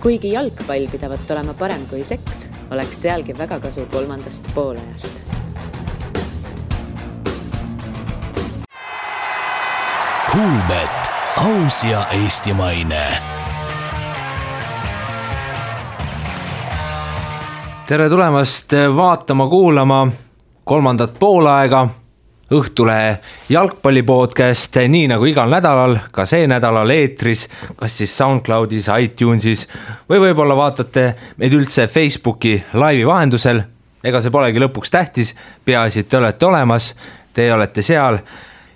Kuigi jalgpall pidavat olema parem kui seks, oleks sealgi väga kasu kolmandast poolajast. Kuulbet, aus ja eestimaine. Tere tulemast vaatama, kuulama kolmandat poolaega Õhtulehe jalgpallipodcast, nii nagu igal nädalal, ka see nädalal eetris, kas siis SoundCloudis, iTunesis või võib-olla vaatate meid üldse Facebooki laivi vahendusel. Ega see polegi lõpuks tähtis, peaasi, et te olete olemas, te olete seal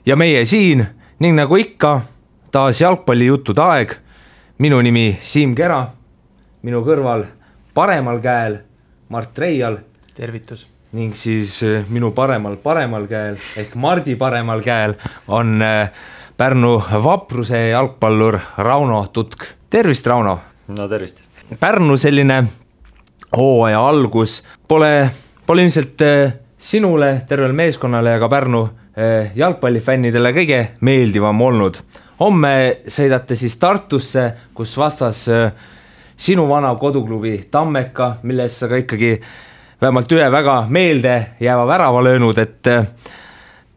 ja meie siin, ning nagu ikka, taas jalgpallijuttude aeg. Minu nimi Siim Kera, minu kõrval paremal käel Mart Reial. Tervitus. Ning siis minu paremal käel ehk Mardi paremal käel on Pärnu Vapruse jalgpallur Rauno Tutk. Tervist, Rauno! No tervist! Pärnu selline hooaja algus pole ilmselt sinule, tervel meeskonnale ja ka Pärnu jalgpallifännidele kõige meeldivam olnud. Homme sõidate siis Tartusse, kus vastas sinu vana koduklubi Tammeka, milles sa ka ikkagi vähemalt ühe väga meelde jääva värava löönud, et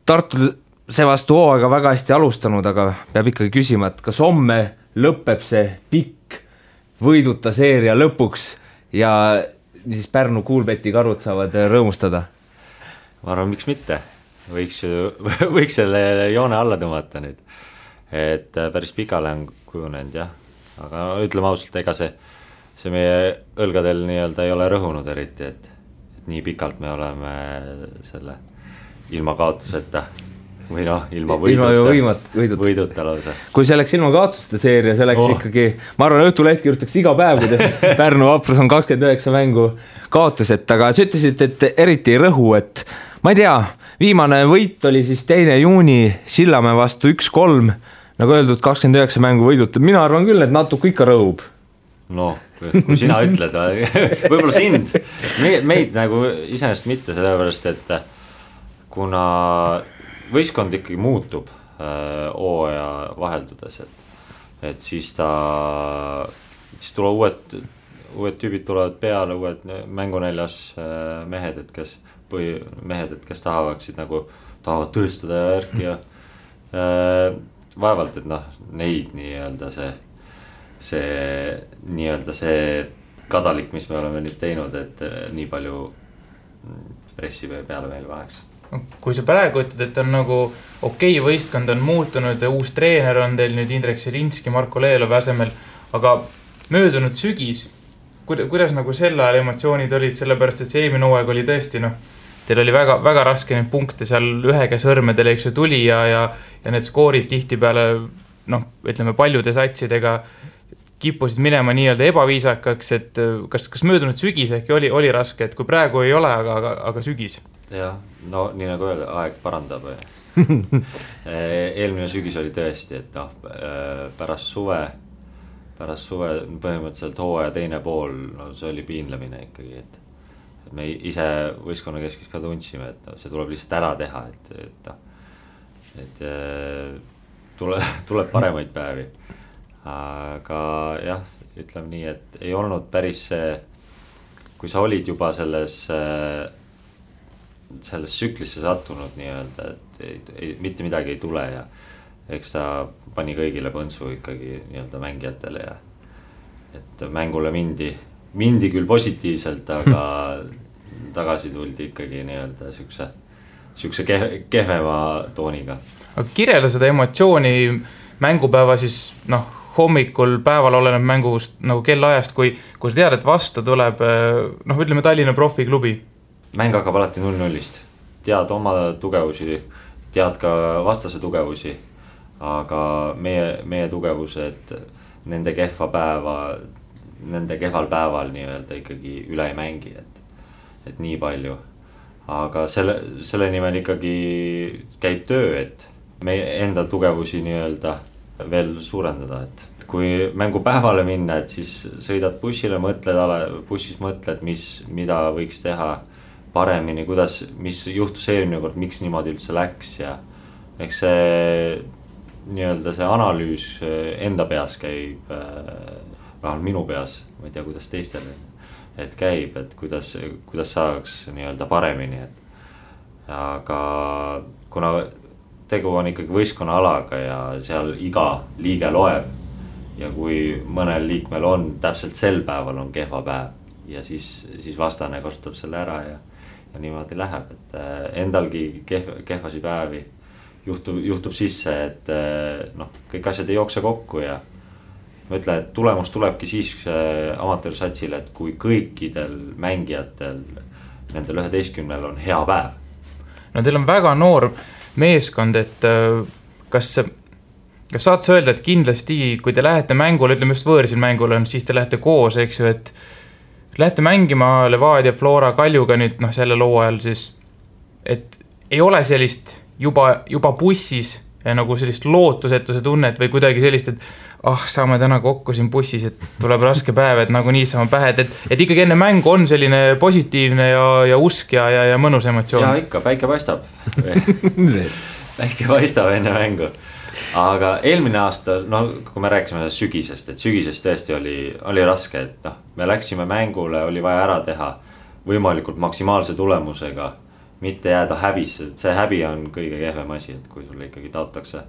Tartu seevastu hooaega väga hästi alustanud, aga peab ikkagi küsima, et kas homme lõpeb see pikk võiduta seeria lõpuks ja siis Pärnu Kuulbeti karud saavad rõõmustada? Ma arvan, miks mitte? Võiks selle joone alla tõmmata nüüd, et päris pikale on kujunenud, jah. Aga ütleme ausalt, ega see meie õlgadel nii-öelda ei ole rõhunud eriti, et nii pikalt me oleme selle ilma kaotuseta või ilma võiduta lausa. Kui see läks ilma kaotuste seeria, see läks ikkagi, ma arvan, Õhtuleht kirjutaks iga päev, kuidas Pärnu Vaprus on 29 mängu kaotuset, aga sa ütlesid, et eriti ei rõhu, et ma ei tea, viimane võit oli siis 2. juuni Sillamäe vastu 1-3, nagu öeldud, 29 mängu võidutud. Mina arvan küll, et natuke ikka rõhub. No, kui sina ütled, võib-olla sind, meid nagu iseenesest mitte, sellepärast, et kuna võistkond ikkagi muutub hooaja vaheldudes, et siis tuleb uued tüübid tulevad peale, uued mängunäljas mehed, kes tahavad tõestada järgi ja vaevalt, et neid nii-öelda see kadalik, mis me oleme nüüd teinud, et nii palju pressi peale meil paneks. Kui sa praegu ütled, et on nagu okei, võistkond on muutunud ja uus treener on teil nüüd Indrek Selinski, Marko Leelov asemel, aga möödunud sügis, kuidas nagu selle ajal emotsioonid olid, sellepärast, et see eelmine hooaeg oli tõesti, teil oli väga, väga raske neid punkte seal ühega sõrmedele, eks ju, tuli ja need skoorid tihti peale, ütleme paljude satsidega kippusid minema nii-öelda ebaviisakaks, et kas möödunud sügis ehk oli raske, et kui praegu ei ole, aga sügis? Jah, nii nagu öelda, aeg parandab. Eelmine sügis oli tõesti, et pärast suve põhimõtteliselt hooaja teine pool, see oli piinlemine ikkagi, et me ise võistkonna keskis ka tundsime, et see tuleb lihtsalt ära teha, et tuleb paremaid päevi. Aga jah, ütleme nii, et ei olnud päris see, kui sa olid juba selles süklisse sattunud nii-öelda, et mitte midagi ei tule ja eks ta pani kõigile põntsu ikkagi nii-öelda mängijatele ja et mängule mindi küll positiivselt, aga tagasi tuldi ikkagi nii-öelda sükse kehvema tooniga. Aga kirjelda seda emotsiooni mängupäeva siis, hommikul päeval oleneb mängust nagu kellaajast, kui sa tead, et vastu tuleb, ütleme Tallinna profiklubi. Mäng hakkab alati 0-0-st. Tead oma tugevusi, tead ka vastase tugevusi, aga meie tugevused nende kehval päeval nii-öelda ikkagi üle ei mängi, et nii palju. Aga selle nimel ikkagi käib töö, et meie enda tugevusi nii-öelda veel suurendada, et kui mängupäevale minna, et siis sõidad bussis mõtled, mida võiks teha paremini, mis juhtus eelmine kord, miks niimoodi üldse läks ja eks see nii-öelda see analüüs enda peas käib vähemalt minu peas, ma ei tea, kuidas teistel, et käib, et kuidas saaks nii-öelda paremini, et aga kuna tegu on ikkagi võistkonna alaga ja seal iga liige loeb ja kui mõnel liikmel on täpselt sel päeval on kehva päev ja siis vastane kasutab selle ära ja niimoodi läheb, et endalgi kehvasi päevi juhtub sisse, et kõik asjad ei jookse kokku ja ma ütlen, et tulemus tulebki siis amatöörsatsile, et kui kõikidel mängijatel, nendel 11 on hea päev. No teil on väga noor meeskond, et kas saad sa öelda, et kindlasti, kui te lähete mängule, ütleme just võõrsil mängule, siis te lähete koos, eks ju, et lähete mängima Levadia, Flora, Kaljuga nüüd selle loo ajal siis, et ei ole sellist juba bussis nagu sellist lootusetuse tunnet või kuidagi sellist, et saame täna kokku siin bussis, et tuleb raske päev, et nagu nii saame pähe, et ikkagi enne mängu on selline positiivne ja usk ja mõnus emotsioon. Ja ikka, päike paistab. Päike paistab enne mängu. Aga eelmine aasta, kui me rääkisime sügisest, et sügisest tõesti oli raske, et me läksime mängule, oli vaja ära teha võimalikult maksimaalse tulemusega, mitte jääda häbisse, et see häbi on kõige kehvem asi, et kui sulle ikkagi taotakse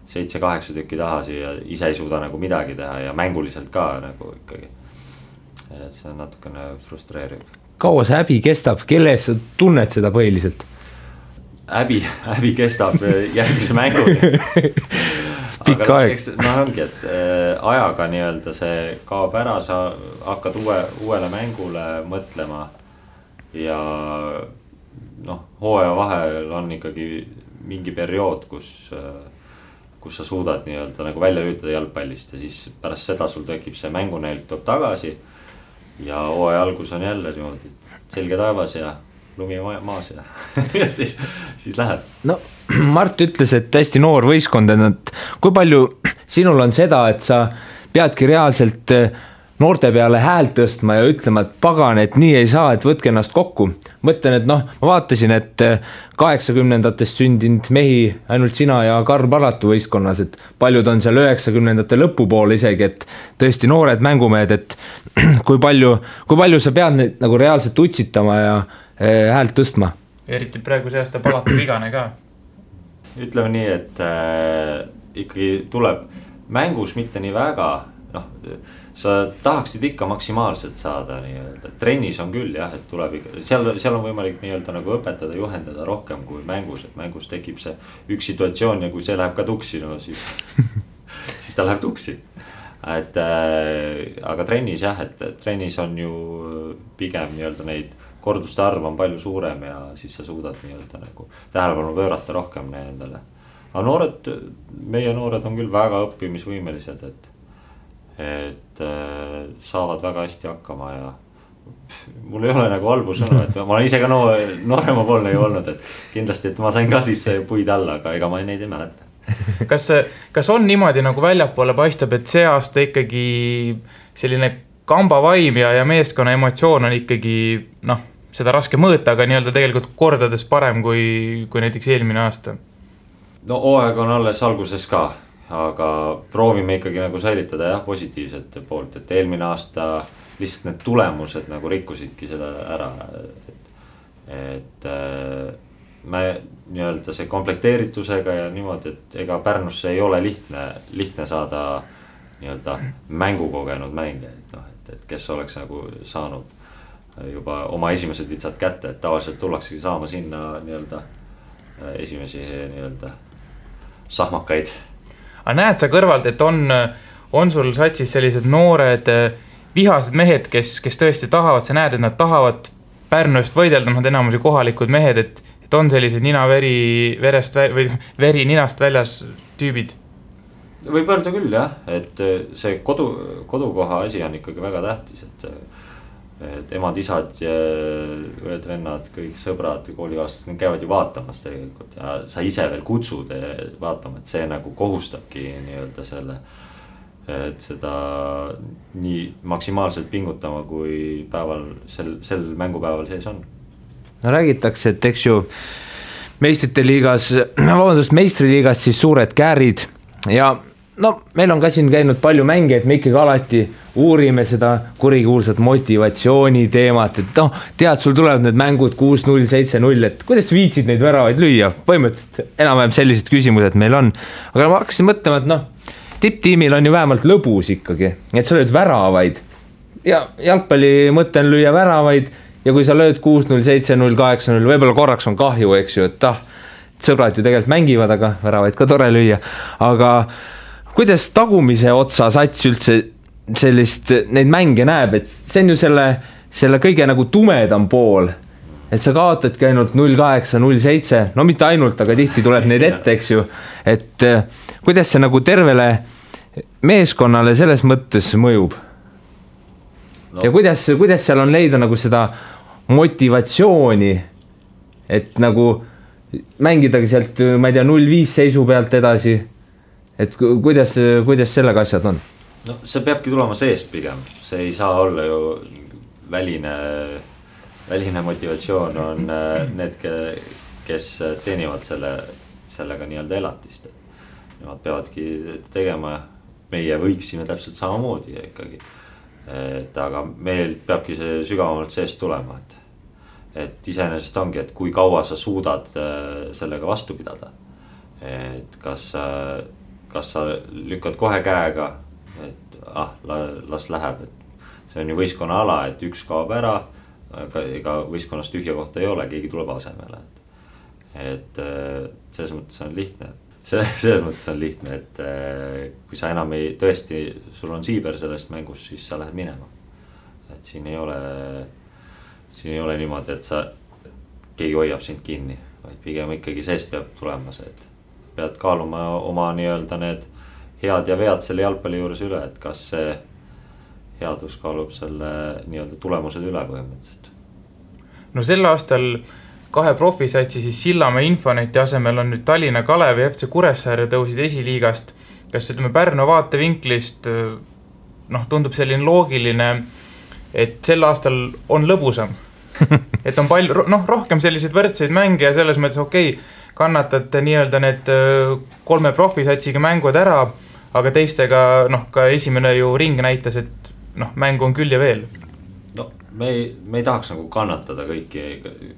7-8 tükki tahasi ja ise ei suuda nagu midagi teha ja mänguliselt ka nagu ikkagi, et see on natukene frustreeriv. Kaua see häbi kestab, kelles sa tunned seda põhiliselt? Häbi kestab järgmise mänguni. Pikka aeg. Ongi, et ajaga nii-öelda see kaob ära, sa hakkad uuele mängule mõtlema ja hooaja vahel on ikkagi mingi periood, kus sa suudad nii-öelda nagu välja lüütada jalgpallist ja siis pärast seda sul tekib see mängunäilt tuleb tagasi ja hooaja algus on jälle niimoodi selge taevas ja lumi maas ja siis läheb. No Mart ütles, et hästi noor võistkond, et kui palju sinul on seda, et sa peadki reaalselt noorte peale häält tõstma ja ütlema, et pagan, et nii ei saa, et võtke ennast kokku. Mõtlen, et ma vaatasin, et 80-ndatest sündinud mehi ainult sina ja Karl Palatu võistkonnas, et paljud on seal 90-ndate lõpupool isegi, et tõesti noored mängumehed, et kui palju sa pead neid nagu reaalselt utsitama ja häält tõstma. Eriti praegu see aasta Palatu vigane ka. Ütleme nii, et ikkagi tuleb mängus mitte nii väga, sa tahaksid ikka maksimaalselt saada nii-öelda. Trennis on küll jah, et tuleb ikka, seal on võimalik nii-öelda nagu õpetada, juhendada rohkem kui mängus, et mängus tekib see üks situatsioon ja kui see läheb ka tuksi, siis ta läheb tuksi. Aga trennis jah, et trennis on ju pigem nii-öelda neid korduste arv on palju suurem ja siis sa suudad nii-öelda nagu tähelepanu pöörata rohkem nendele. Aga meie noored on küll väga õppimisvõimelised, et saavad väga hästi hakkama ja mul ei ole nagu halbu sõnu, et ma olen ise ka noorema poolne ju olnud, et kindlasti, et ma sain ka siis puid alla, aga ega ma neid ei mäleta. Kas on niimoodi nagu väljapoole paistab, et see aasta ikkagi selline kambavaim ja meeskonna emotsioon on ikkagi seda raske mõõta, aga nii-öelda tegelikult kordades parem kui näiteks eelmine aasta? No hooaeg on alles alguses ka, aga proovime ikkagi nagu säilitada positiivset poolt, et eelmine aasta lihtsalt need tulemused nagu rikkusidki seda ära, et me nii-öelda see komplekteeritusega ja niimoodi, et ega Pärnusse ei ole lihtne saada nii-öelda mängukogenud mänge, et kes oleks nagu saanud juba oma esimesed vitsad kätte, et tavaliselt tullaksegi saama sinna nii-öelda esimesi nii-öelda sahmakaid. Aga näed sa kõrvalt, et on sul satsis sellised noored vihased mehed, kes tõesti tahavad, sa näed, et nad tahavad Pärnu eest võidelda, nad enamusi kohalikud mehed, et on sellised veri ninast väljas tüübid? Võib öelda küll jah, et see kodukoha asi on ikkagi väga tähtis, et emad, isad, õed, vennad, kõik sõbrad, koolikaaslased, need käivad ju vaatamas tegelikult ja sa ise veel kutsud vaatama, et see nagu kohustabki nii-öelda selle, et seda nii maksimaalselt pingutama, kui päeval, sel mängupäeval sees on. No räägitakse, et eks ju meistriliigas siis suured käärid ja no meil on ka siin käinud palju mänge, et me ikkagi alati uurime seda kurikuulsat motivatsiooni teemat, et noh, tead, sul tulevad need mängud 6-0, 7-0, et kuidas viitsid neid väravaid lüüa? Põhimõtteliselt enam-vähem sellised küsimused meil on. Aga ma hakkasin mõtlema, et noh, tipptiimil on ju vähemalt lõbus ikkagi, et sa lööd väravaid ja jalgpalli mõte on lüüa väravaid ja kui sa lööd 6-0, 7-0, 8-0, võib-olla korraks on kahju, eks ju, et sõbrad ju tegelikult mängivad, aga väravaid ka tore lüüa, aga kuidas tagumise otsa sats üldse sellist neid mänge näeb, et see on ju selle kõige nagu tumedam pool, et sa kaotadki ainult 0-8, 0-7, no mitte ainult, aga tihti tuleb neid ette, eks ju, et kuidas see nagu tervele meeskonnale selles mõttes mõjub? No. Ja kuidas seal on leida nagu seda motivatsiooni, et nagu mängidagi sealt, ma ei tea, 0-5 seisu pealt edasi, et kuidas sellega asjad on? No see peabki tulema seest pigem, see ei saa olla ju väline motivatsioon on need, kes teenivad sellega nii-öelda elatist. Nemad peavadki tegema, meie võiksime täpselt samamoodi ikkagi. Et aga meil peabki see sügavamalt seest tulema, et iseenesest ongi, et kui kaua sa suudad sellega vastu pidada. Et kas sa lükkad kohe käega, et las läheb, et see on ju võistkonna ala, et üks kaob ära, ega võistkonnas tühja kohta ei ole, keegi tuleb asemele. Et selles mõttes on lihtne. Selles mõttes on lihtne, et kui sa enam tõesti, sul on siiber sellest mängus, siis sa lähed minema. Et siin ei ole niimoodi, et keegi hoiab sind kinni, vaid pigem ikkagi seest peab tulema see, et pead kaaluma oma nii-öelda need head ja vead selle jalgpalli juures üle, et kas see headus kaalub selle nii-öelda tulemused üle põhimõtteliselt. No sel aastal 2 profisatsi siis Sillamäe Infoneti asemel on nüüd Tallinna Kalev ja FC Kuressaare tõusid esiliigast. Kas ütleme Pärnu vaatevinklist tundub selline loogiline, et sel aastal on lõbusam? Et on palju, rohkem selliseid võrdseid mänge ja selles mõttes kannatad nii-öelda need 3 profisatsiga mängud ära, aga teistega ka esimene ju ring näitas, et mängu on küll ja veel. No me ei tahaks nagu kannatada kõiki,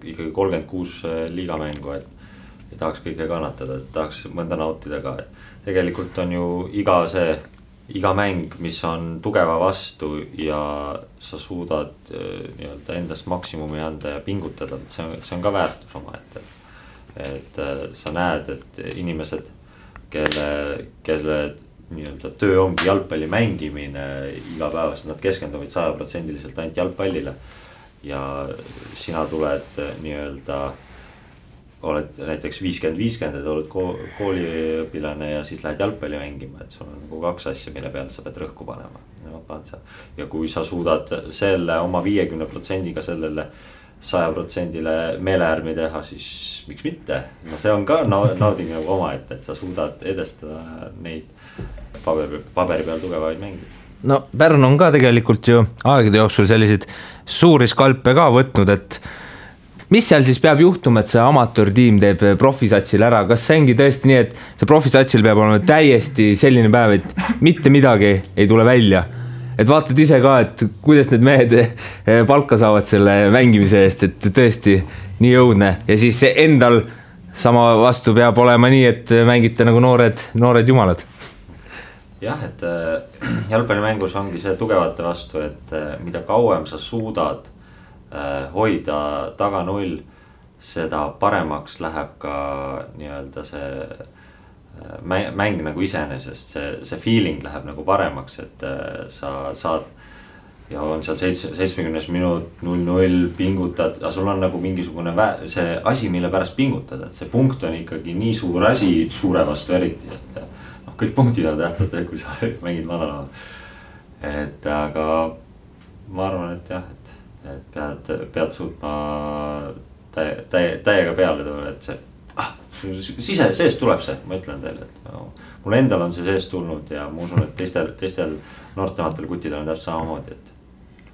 ikkagi 36 liigamängu, et ei tahaks kõike kannatada, et tahaks mõnda nautida ka. Tegelikult on ju iga mäng, mis on tugeva vastu ja sa suudad nii-öelda endast maksimumi anda ja pingutada, et see on ka väärtus oma ette. Et sa näed, et inimesed, kelle nii-öelda töö ongi jalgpalli mängimine igapäevast, nad keskenduvad 100% ainult jalgpallile ja sina tuled nii-öelda, oled näiteks 50-50, et oled kooliõpilane ja siis lähed jalgpalli mängima, et sul on nagu 2 asja, mille peale sa pead rõhku panema. Ja kui sa suudad selle oma 50%-ga sellele 100%-le meeleärmi teha, siis miks mitte? No see on ka nauding nagu oma, et sa suudad edestada neid paberi peal tugevaid mänge. No Pärnu on ka tegelikult ju aegade jooksul selliseid suuri skalpe ka võtnud, et mis seal siis peab juhtuma, et see amatöörtiim teeb profisatsil ära? Kas see ongi tõesti nii, et see profisatsil peab olema täiesti selline päev, et mitte midagi ei tule välja? Et vaatad ise ka, et kuidas need mehed palka saavad selle mängimise eest, et tõesti nii jõudne. Ja siis see endal sama vastu peab olema nii, et mängite nagu noored jumalad. Jah, et jalgpallimängus ongi see tugevate vastu, et mida kauem sa suudad hoida taga 0, seda paremaks läheb ka nii-öelda see mäng nagu iseenesest, see feeling läheb nagu paremaks, et sa saad ja on seal 70 minut 0-0 pingutad, aga sul on nagu mingisugune see asi, mille pärast pingutada, et see punkt on ikkagi nii suur asi suure vastu eriti, et kõik punktid on tähtsad, kui sa mängid madalama. Et aga ma arvan, et jah, et pead suutma täiega peale tulla, et see seest tuleb see, ma ütlen teile, et mul endal on see seest tulnud ja ma usun, et teistel noortematel kuttidel on täpselt samamoodi, et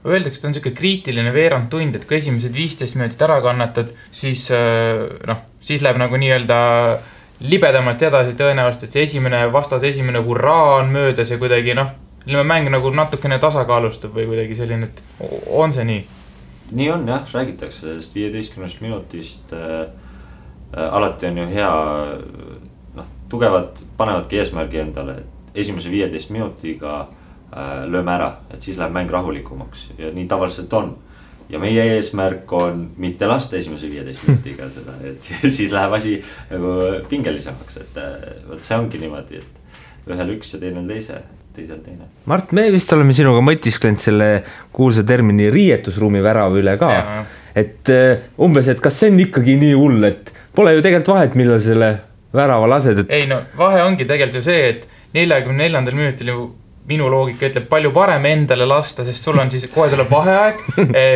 öeldakse, et on selline kriitiline veerand tund, et kui esimesed 15 minutit ära kannatad, siis läheb nagu nii-öelda libedamalt edasi tõenäoliselt, et see vastase esimene hurraa on möödas ja kuidagi mäng nagu natukene tasakaalustub või kuidagi selline, et on see nii? Nii on jah, räägitakse sellest 15 minutist. Alati on ju hea, tugevad panevadki eesmärgi endale, et esimese 15 minutiga lööme ära, et siis läheb mäng rahulikumaks ja nii tavaliselt on. Ja meie eesmärk on mitte lasta esimese 15 minutiga seda, et siis läheb asi nagu pingelisemaks, et võt see ongi niimoodi, et ühel üks ja teisel teine. Mart, me vist oleme sinuga mõtisklenud selle kuulsa termini riietusruumi värava üle ka, et umbes, et kas see on ikkagi nii hull, et pole ju tegelikult vahet, millal selle värava lased, et... Ei vahe ongi tegelikult ju see, et 44. minutil ju minu loogika ütleb palju parem endale lasta, sest sul on siis kohe tuleb vaheaeg,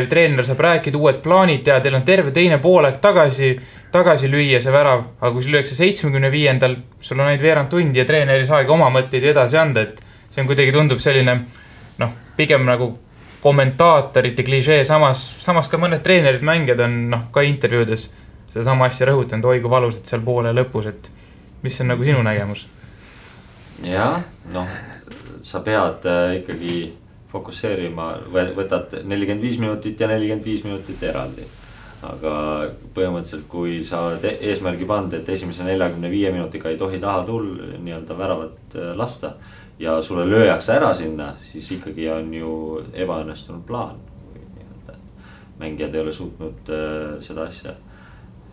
treener saab rääkida, uued plaanid ja teil on terve teine poolaeg tagasi lüüa see värav, aga kui sul lüüakse 75. sul on ainult veerand tundi ja treener ei saagi oma mõtteid edasi anda, et see on kuidagi tundub selline, pigem nagu kommentaatorite klišee, samas ka mõned treenerid mängijad on ka intervjuudes seda sama asja rõhutanud, oi kui valusad seal poole lõpus, et mis on nagu sinu nägemus? Ja, sa pead ikkagi fokusseerima, võtad 45 minutit ja 45 minutit eraldi. Aga põhimõtteliselt, kui sa oled eesmärgi pand, et esimese 45 minutiga ei tohi taha nii-öelda väravat lasta ja sulle lööjaks ära sinna, siis ikkagi on ju ebaõnnestunud plaan. Mängijad ei ole suutnud seda asja.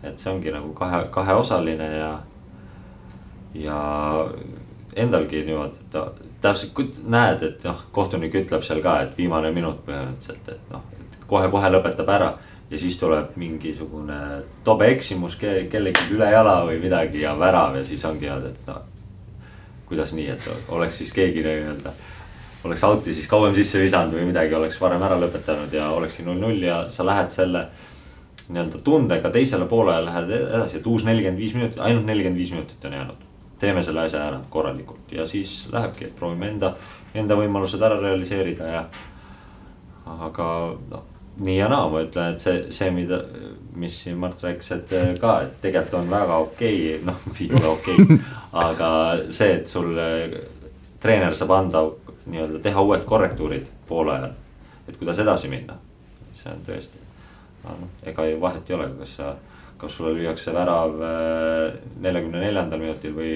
Et see ongi nagu kaheosaline ja endalgi niimoodi, et täpselt näed, et kohtunik ütleb seal ka, et viimane minut põhimõtteliselt, et kohe lõpetab ära ja siis tuleb mingisugune tobe eksimus kellegi üle jala või midagi ja värav ja siis ongi, et kuidas nii, et oleks siis keegi oleks auti siis kauem sisse visanud või midagi, oleks varem ära lõpetanud ja olekski 0-0 ja sa lähed selle nii-öelda tundega teisele poole lähed edasi, et uus 45 minutit, ainult 45 minutit on jäänud. Teeme selle asja ära korralikult ja siis lähebki, et proovime enda võimalused ära realiseerida ja aga nii ja naa, ma ütlen, et see mis siin Mart rääkis, et ka, et tegelikult on väga okei, ei ole okei, aga see, et sul treener saab anda nii-öelda teha uued korrektuurid poole ajal, et kuidas edasi minna, see on tõesti, ega ju vahet ei ole, kas sulle lüüakse värav 44. minutil või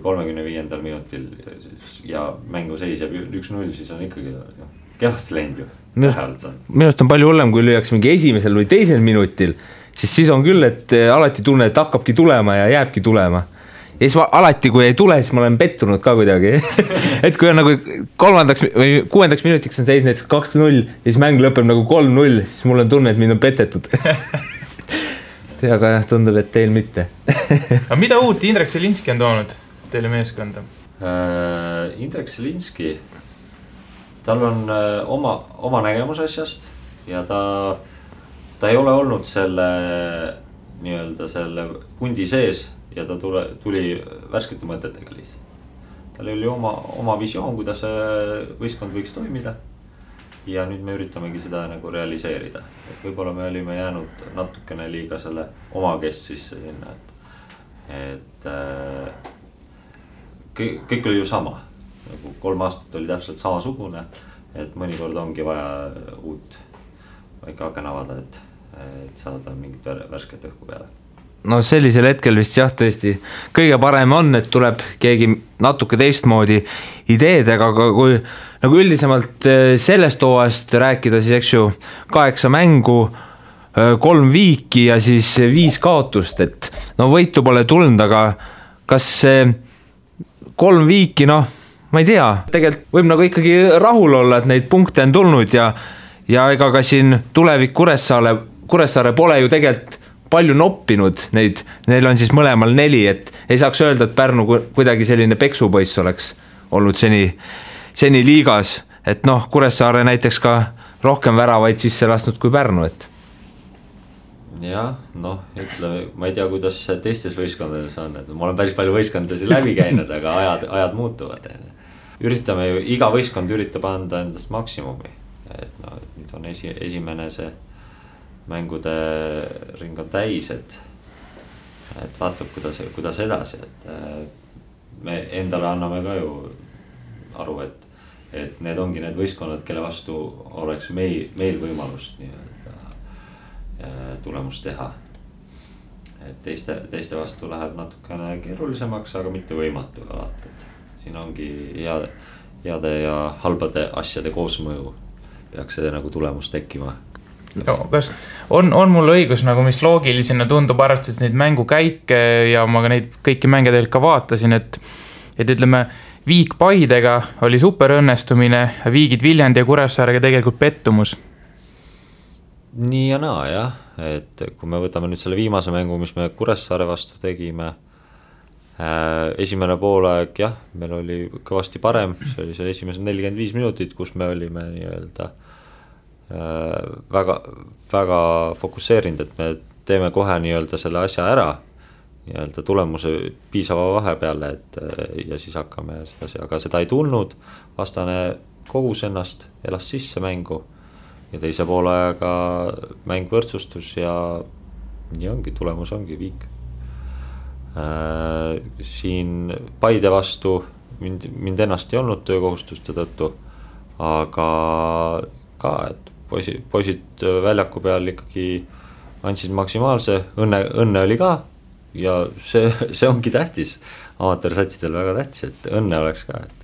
35. minutil ja mängu seis jääb 1-0, siis on ikkagi kehvasti läinud ju. Minust on palju hullem, kui lüüakse mingi esimesel või teisel minutil, siis on küll, et alati tunne, et hakkabki tulema ja jääbki tulema. Ja siis alati, kui ei tule, siis ma olen pettunud ka kuidagi. Et kui on nagu 3. või 6. minutiks on seis näiteks 2-0 ja siis mäng lõpeb nagu 3-0, siis mul on tunne, et mind on petetud. Aga tundub, et teil mitte. Aga mida uut Indrek Selinski on toonud teile meeskonda? Indrek Selinski, tal on oma nägemus asjast ja ta ei ole olnud selle nii-öelda selle pundi sees ja ta tuli värskete mõtetega lihtsalt. Tal oli oma visioon, kuidas võistkond võiks toimida. Ja nüüd me üritamegi seda nagu realiseerida, et võib-olla me olime jäänud natukene liiga selle oma kest sisse sinna, et kõik oli ju sama, nagu 3 aastat oli täpselt samasugune, et mõnikord ongi vaja uut väike aken avada, et saada mingit värsket õhku peale. No sellisel hetkel vist jah, tõesti kõige parem on, et tuleb keegi natuke teistmoodi ideedega, aga kui nagu üldisemalt sellest hooajast rääkida, siis eks ju 8 mängu, 3 viiki ja siis 5 kaotust, et võitu pole tulnud, aga kas 3 viiki, ma ei tea, tegelikult võib nagu ikkagi rahul olla, et neid punkte on tulnud ja ega ka siin tulevik Kuressaare pole ju tegelikult palju noppinud neid, neil on siis mõlemal 4, et ei saaks öelda, et Pärnu kuidagi selline peksupoiss oleks olnud seni liigas, et Kuressaare näiteks ka rohkem väravaid sisse lasnud kui Pärnu, et. Jah, ütleme, ma ei tea, kuidas teistes võistkondades on, et ma olen päris palju võistkondasi läbi käinud, aga ajad muutuvad. Üritame ju, iga võistkond üritab anda endast maksimumi, et nüüd on esimene see mängude ring on täis, et et vaatab, kuidas edasi, et me endale anname ka ju aru, et need ongi need võistkonnad, kelle vastu oleks meil võimalust tulemust teha. Et teiste vastu läheb natukene keerulisemaks, aga mitte võimatu alati. Siin ongi heade ja halbade asjade koosmõju peaks see nagu tulemus tekkima. No, kas on mul õigus, nagu mis loogilisena tundub, arvestades neid mängukäike ja ma ka neid kõiki mänge tegelikult ka vaatasin, et ütleme, Viik Paidega oli super õnnestumine, Viigid Viljandi ja Kuressaarega tegelikult pettumus. Nii ja naa, jah, et kui me võtame nüüd selle viimase mängu, mis me Kuressaare vastu tegime, esimene poolaeg, jah, meil oli kõvasti parem, see oli see esimesed 45 minutit, kus me olime nii-öelda väga fokusseerinud, et me teeme kohe nii-öelda selle asja ära, nii-öelda tulemuse piisava vahe peale, ja siis hakkame sedasi, aga seda ei tulnud, vastane kogus ennast, elas sisse mängu ja teise poolaega mäng võrdsustus ja nii ongi, tulemus ongi Viik. Siin Paide vastu mind ennast ei olnud töökohustuste tõttu, aga ka, et poisid väljaku peal ikkagi andsid maksimaalse, õnne oli ka ja see ongi tähtis, amatöörsatsidel väga tähtis, et õnne oleks ka, et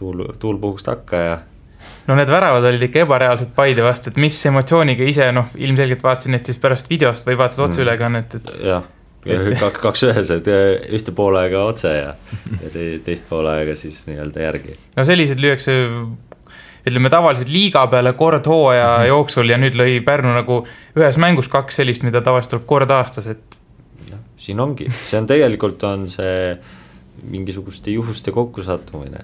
tuul puhuks takka ja no need väravad olid ikka ebareaalsed Paide vastu, et mis emotsiooniga ise, ilmselgelt vaatasin need siis pärast videost või vaatasid otseülekannet, et jah, kaks ühes, et ühte poolega otse ja teist poolega siis nii-öelda järgi. No sellised lüüakse, ütleme tavaliselt liiga peale kord hooaja jooksul ja nüüd lõi Pärnu nagu ühes mängus 2 sellist, mida tavaliselt tuleb kord aastas, et no, siin ongi, see on tegelikult on see mingisuguste juhuste kokkusattumine,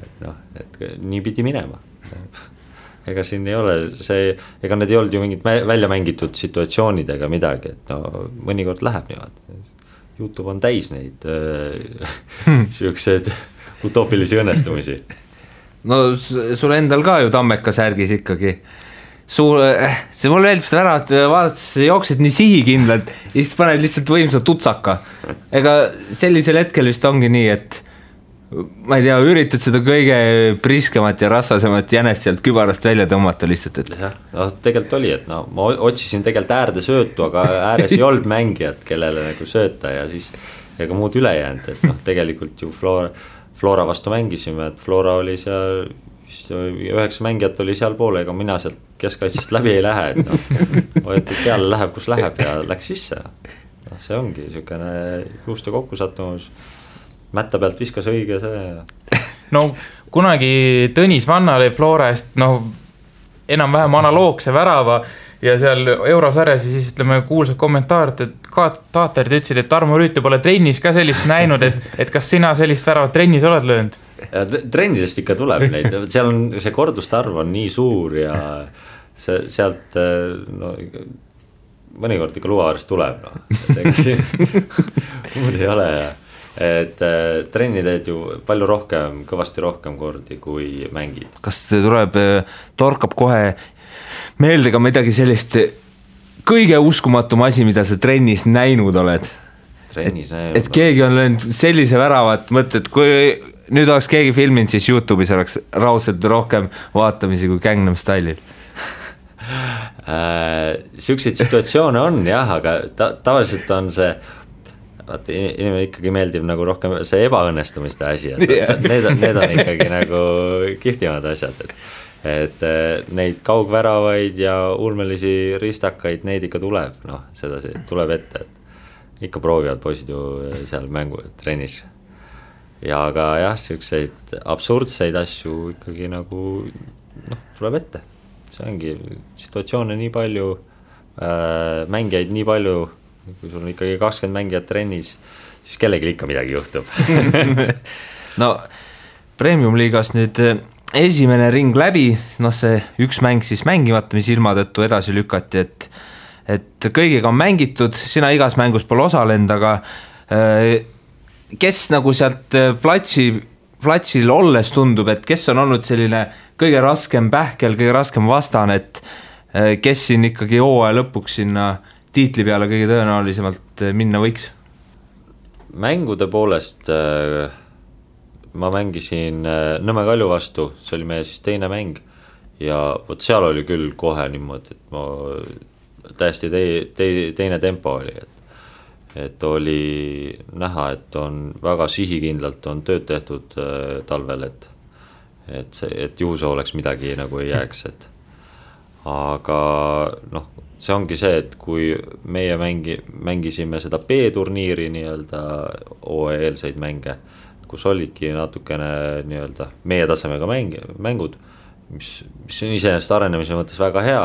et nii pidi minema. Ega siin ei ole ega need ei olnud ju mingid välja mängitud situatsioonid ega midagi, et no mõnikord läheb niimoodi. YouTube on täis neid siuksed utoopilisi õnnestumisi. No sul endal ka ju Tammeka särgis ikkagi. See mulle meeldib seda ära, et vaadates jooksid nii sihikindlalt ja siis paned lihtsalt võimsa tutsaka. Ega sellisel hetkel vist ongi nii, et ma ei tea, üritad seda kõige priskemat ja rasvasemat jänest sealt kübarast välja tõmmata lihtsalt, et jah, no tegelikult oli, et no ma otsisin tegelikult äärde söötu, aga ääres ei olnud mängijat, kellele nagu sööta ja siis ega muud üle jäänud, et noh, tegelikult ju Flora vastu mängisime, et Flora oli seal 9 mängijat oli seal poole, ega mina sealt keskkaitsest läbi ei lähe, et noh, hoiatud peale läheb, kus läheb ja läks sisse. No, see ongi niisugune juuste kokkusattumus. Mätta pealt viskas õige see. No kunagi Tõnis Vanna oli Flora eest enam-vähem analoogse värava ja seal eurosarjas ja siis ütleme kuulsad kommentaarid, et taatarid ütlesid, et Tarmo Rüütel pole trennis ka sellist näinud, et kas sina sellist väravat trennis oled löönud? Trennisest ikka tuleb neid, seal on see korduste arv on nii suur ja sealt no, mõnikord ikka luuaarist tuleb, muud ei ole ja et trenni teed ju palju rohkem, kõvasti rohkem kordi kui mängid. Kas tuleb, torkab kohe meelde ka midagi sellist kõige uskumatum asi, mida sa trennis näinud oled? Et keegi on löönud sellise väravat, mõtled, kui nüüd oleks keegi filminud, siis YouTube'is oleks raudselt rohkem vaatamisi kui Gangnam Style'il. Siukseid situatsioone on jah, aga tavaliselt on see inimene ikkagi meeldib nagu rohkem see ebaõnnestumiste asi, need on ikkagi nagu kihvtimad asjad, et neid kaugväravaid ja ulmelisi ristakaid, neid ikka tuleb, noh, sedasi tuleb ette, et ikka proovivad poisid ju seal mängu trennis ja aga jah, siukseid absurdseid asju ikkagi nagu noh, tuleb ette, see ongi situatsioone nii palju, mängijaid nii palju, kui sul on ikkagi 20 mängijat trennis, siis kellegi ikka midagi juhtub. No, Premium-liigas nüüd esimene ring läbi, noh see üks mäng siis mängimata, mis ilma tõttu edasi lükati, et kõigiga on mängitud, sina igas mängus pole osalenud, aga kes nagu sealt platsil olles tundub, et kes on olnud selline kõige raskem pähkel, kõige raskem vastane, et kes siin ikkagi hooaja lõpuks sinna tiitli peale kõige tõenäolisemalt minna võiks? mängude poolest ma mängisin Nõmme Kalju vastu, see oli meie siis teine mäng ja võt seal oli küll kohe niimoodi, et ma täiesti teine tempo oli, et oli näha, et on väga sihikindlalt on tööd tehtud talvel, et juhuse oleks midagi nagu ei jääks, et aga noh, see ongi see, et kui meie mängisime seda B-turniiri nii-öelda OE-eelseid mänge, kus olidki natukene nii-öelda meie tasemega mängud, mis on iseenesest arenemise mõttes väga hea,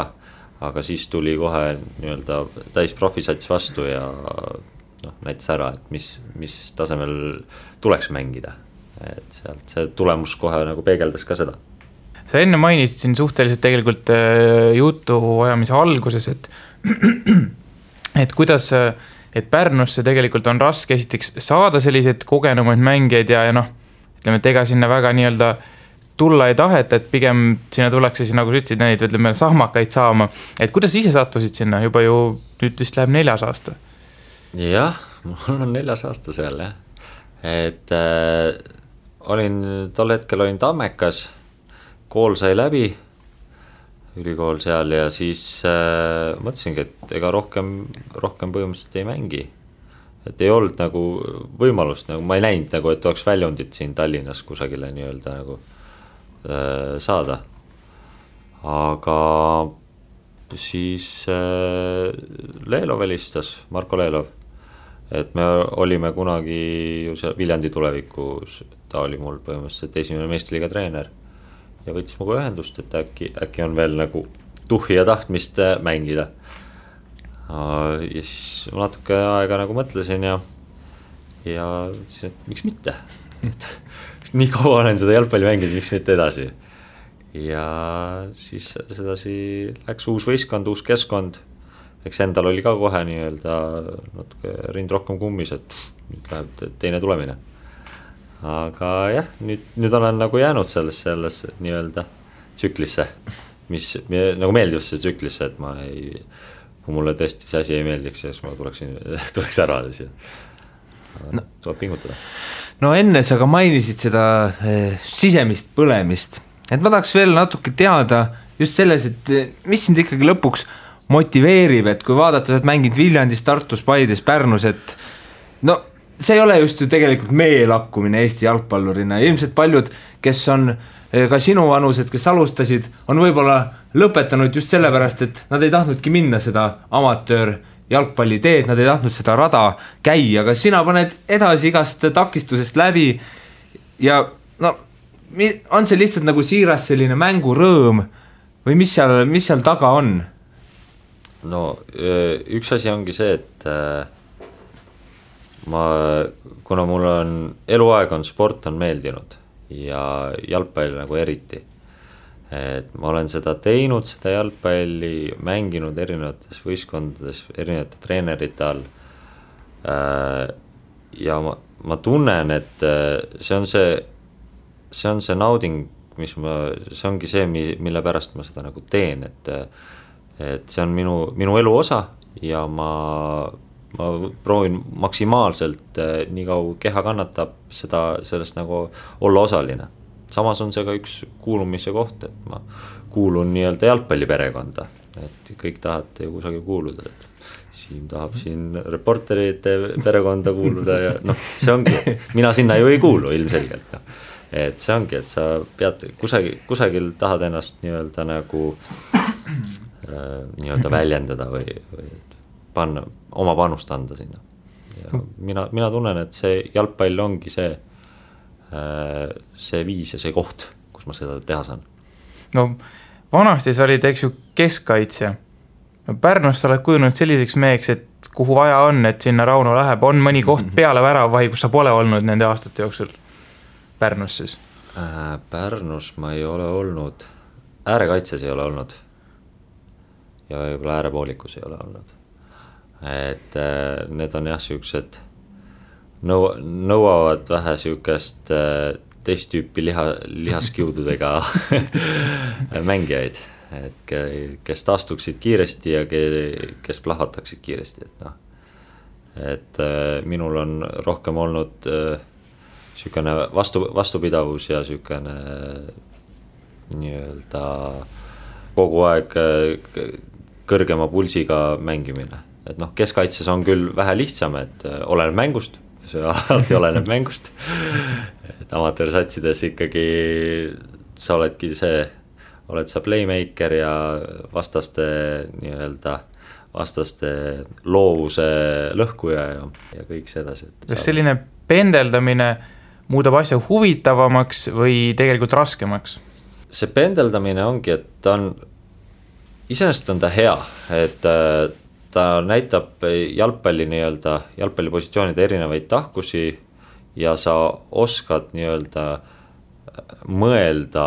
aga siis tuli kohe nii-öelda täis profisats vastu ja näitas ära, et mis tasemel tuleks mängida, et sealt see tulemus kohe nagu peegeldas ka seda. Sa enne mainisid siin suhteliselt tegelikult jutu ajamise alguses, et kuidas, et Pärnusse tegelikult on raske esiteks saada sellised kogenumaid mängijaid ja ütleme, et ega sinna väga nii-öelda tulla ei taheta, et pigem sinna tullakse siis, nagu sa ütlesid, neid ütleme, sahmakaid saama. Et kuidas ise sattusid sinna? Juba ju nüüd vist läheb 4. aasta. Jah, mul on 4. aasta seal, jah. Et tol hetkel olin Tammekas, kool sai läbi, ülikool seal ja siis mõtlesingi, et ega rohkem põhimõtteliselt ei mängi. Et ei olnud nagu võimalust, nagu ma ei näinud nagu, et oleks väljundit siin Tallinnas kusagile nii-öelda nagu saada. Aga siis Leelov helistas, Marko Leelov, et me olime kunagi ju seal Viljandi tulevikus, ta oli mul põhimõtteliselt esimene meistriliiga treener ja võttis muga ühendust, et äkki on veel nagu tuhhi ja tahtmist mängida. Ja siis natuke aega nagu mõtlesin ja siis, et miks mitte? Nii kaua olen seda jalgpalli mänginud, miks mitte edasi. Ja siis sedasi läks uus võistkond, uus keskkond. Eks endal oli ka kohe nii-öelda natuke rind rohkem kummis, et nüüd läheb teine tulemine. Aga jah, nüüd olen nagu jäänud selles nii-öelda tsüklisse, mis nagu meeldivasse tsüklisse, et ma ei, kui mulle tõesti see asi ei meeldiks, siis ma tuleks ära. Tuleb pingutada. No enne sa ka mainisid seda sisemist põlemist, et ma tahaks veel natuke teada just selles, et mis sind ikkagi lõpuks motiveerib, et kui vaadata, et mängid Viljandis, Tartus, Paides, Pärnus, et see ei ole just ju tegelikult meelakkumine Eesti jalgpallurina. Ilmselt paljud, kes on ka sinu vanused, kes alustasid, on võib-olla lõpetanud just sellepärast, et nad ei tahtnudki minna seda amatöör jalgpalli teed, nad ei tahtnud seda rada käia, aga sina paned edasi igast takistusest läbi ja on see lihtsalt nagu siiras selline mängurõõm või mis seal taga on? No üks asi ongi see, et kuna mul on eluaeg on sport on meeldinud ja jalgpall nagu eriti, et ma olen seda teinud, seda jalgpalli mänginud erinevates võistkondades, erinevate treenerite all ja ma tunnen, et see on see nauding, see ongi see, mille pärast ma seda nagu teen, et see on minu elu osa ja ma proovin maksimaalselt nii kaua keha kannatab sellest nagu olla osaline. Samas on see ka üks kuulumise koht, et ma kuulun nii-öelda jalgpalliperekonda, et kõik tahate ju kusagil kuuluda, et siin tahab siin reporterite perekonda kuuluda ja see ongi, mina sinna ju ei kuulu ilmselgelt. Et see ongi, et sa pead kusagil tahad ennast nii-öelda nagu nii-öelda väljendada või panna, oma panust anda sinna. Ja mina tunnen, et see jalgpall ongi see viis ja see koht, kus ma seda teha saan. No vanasti sa olid, eks ju, keskkaitsja. Pärnus sa oled kujunud selliseks meheks, et kuhu vaja on, et sinna Rauno läheb, on mõni koht peale väravahi, kus sa pole olnud nende aastate jooksul Pärnus siis? Pärnus ma ei ole olnud, äärekaitses ei ole olnud ja võib-olla äärepoolikus ei ole olnud. Et need on jah siuksed nõuavad vähe siukest teist tüüpi lihaskiududega mängijaid, et kes taastuksid kiiresti ja kes plahvataksid kiiresti, et et minul on rohkem olnud niisugune vastupidavus ja niisugune nii-öelda kogu aeg kõrgema pulsiga mängimine. Et noh, keskkaitses on küll vähe lihtsam, et oleneb mängust, see alati oleneb mängust. Et amatöörsatsides ikkagi sa oled sa playmaker ja vastaste loovuse lõhkuja ja kõik sedasi. Kas selline pendeldamine muudab asja huvitavamaks või tegelikult raskemaks? See pendeldamine ongi, et ta on, iseenesest on ta hea, et ta näitab jalgpallipositsioonide erinevaid tahkusi ja sa oskad mõelda,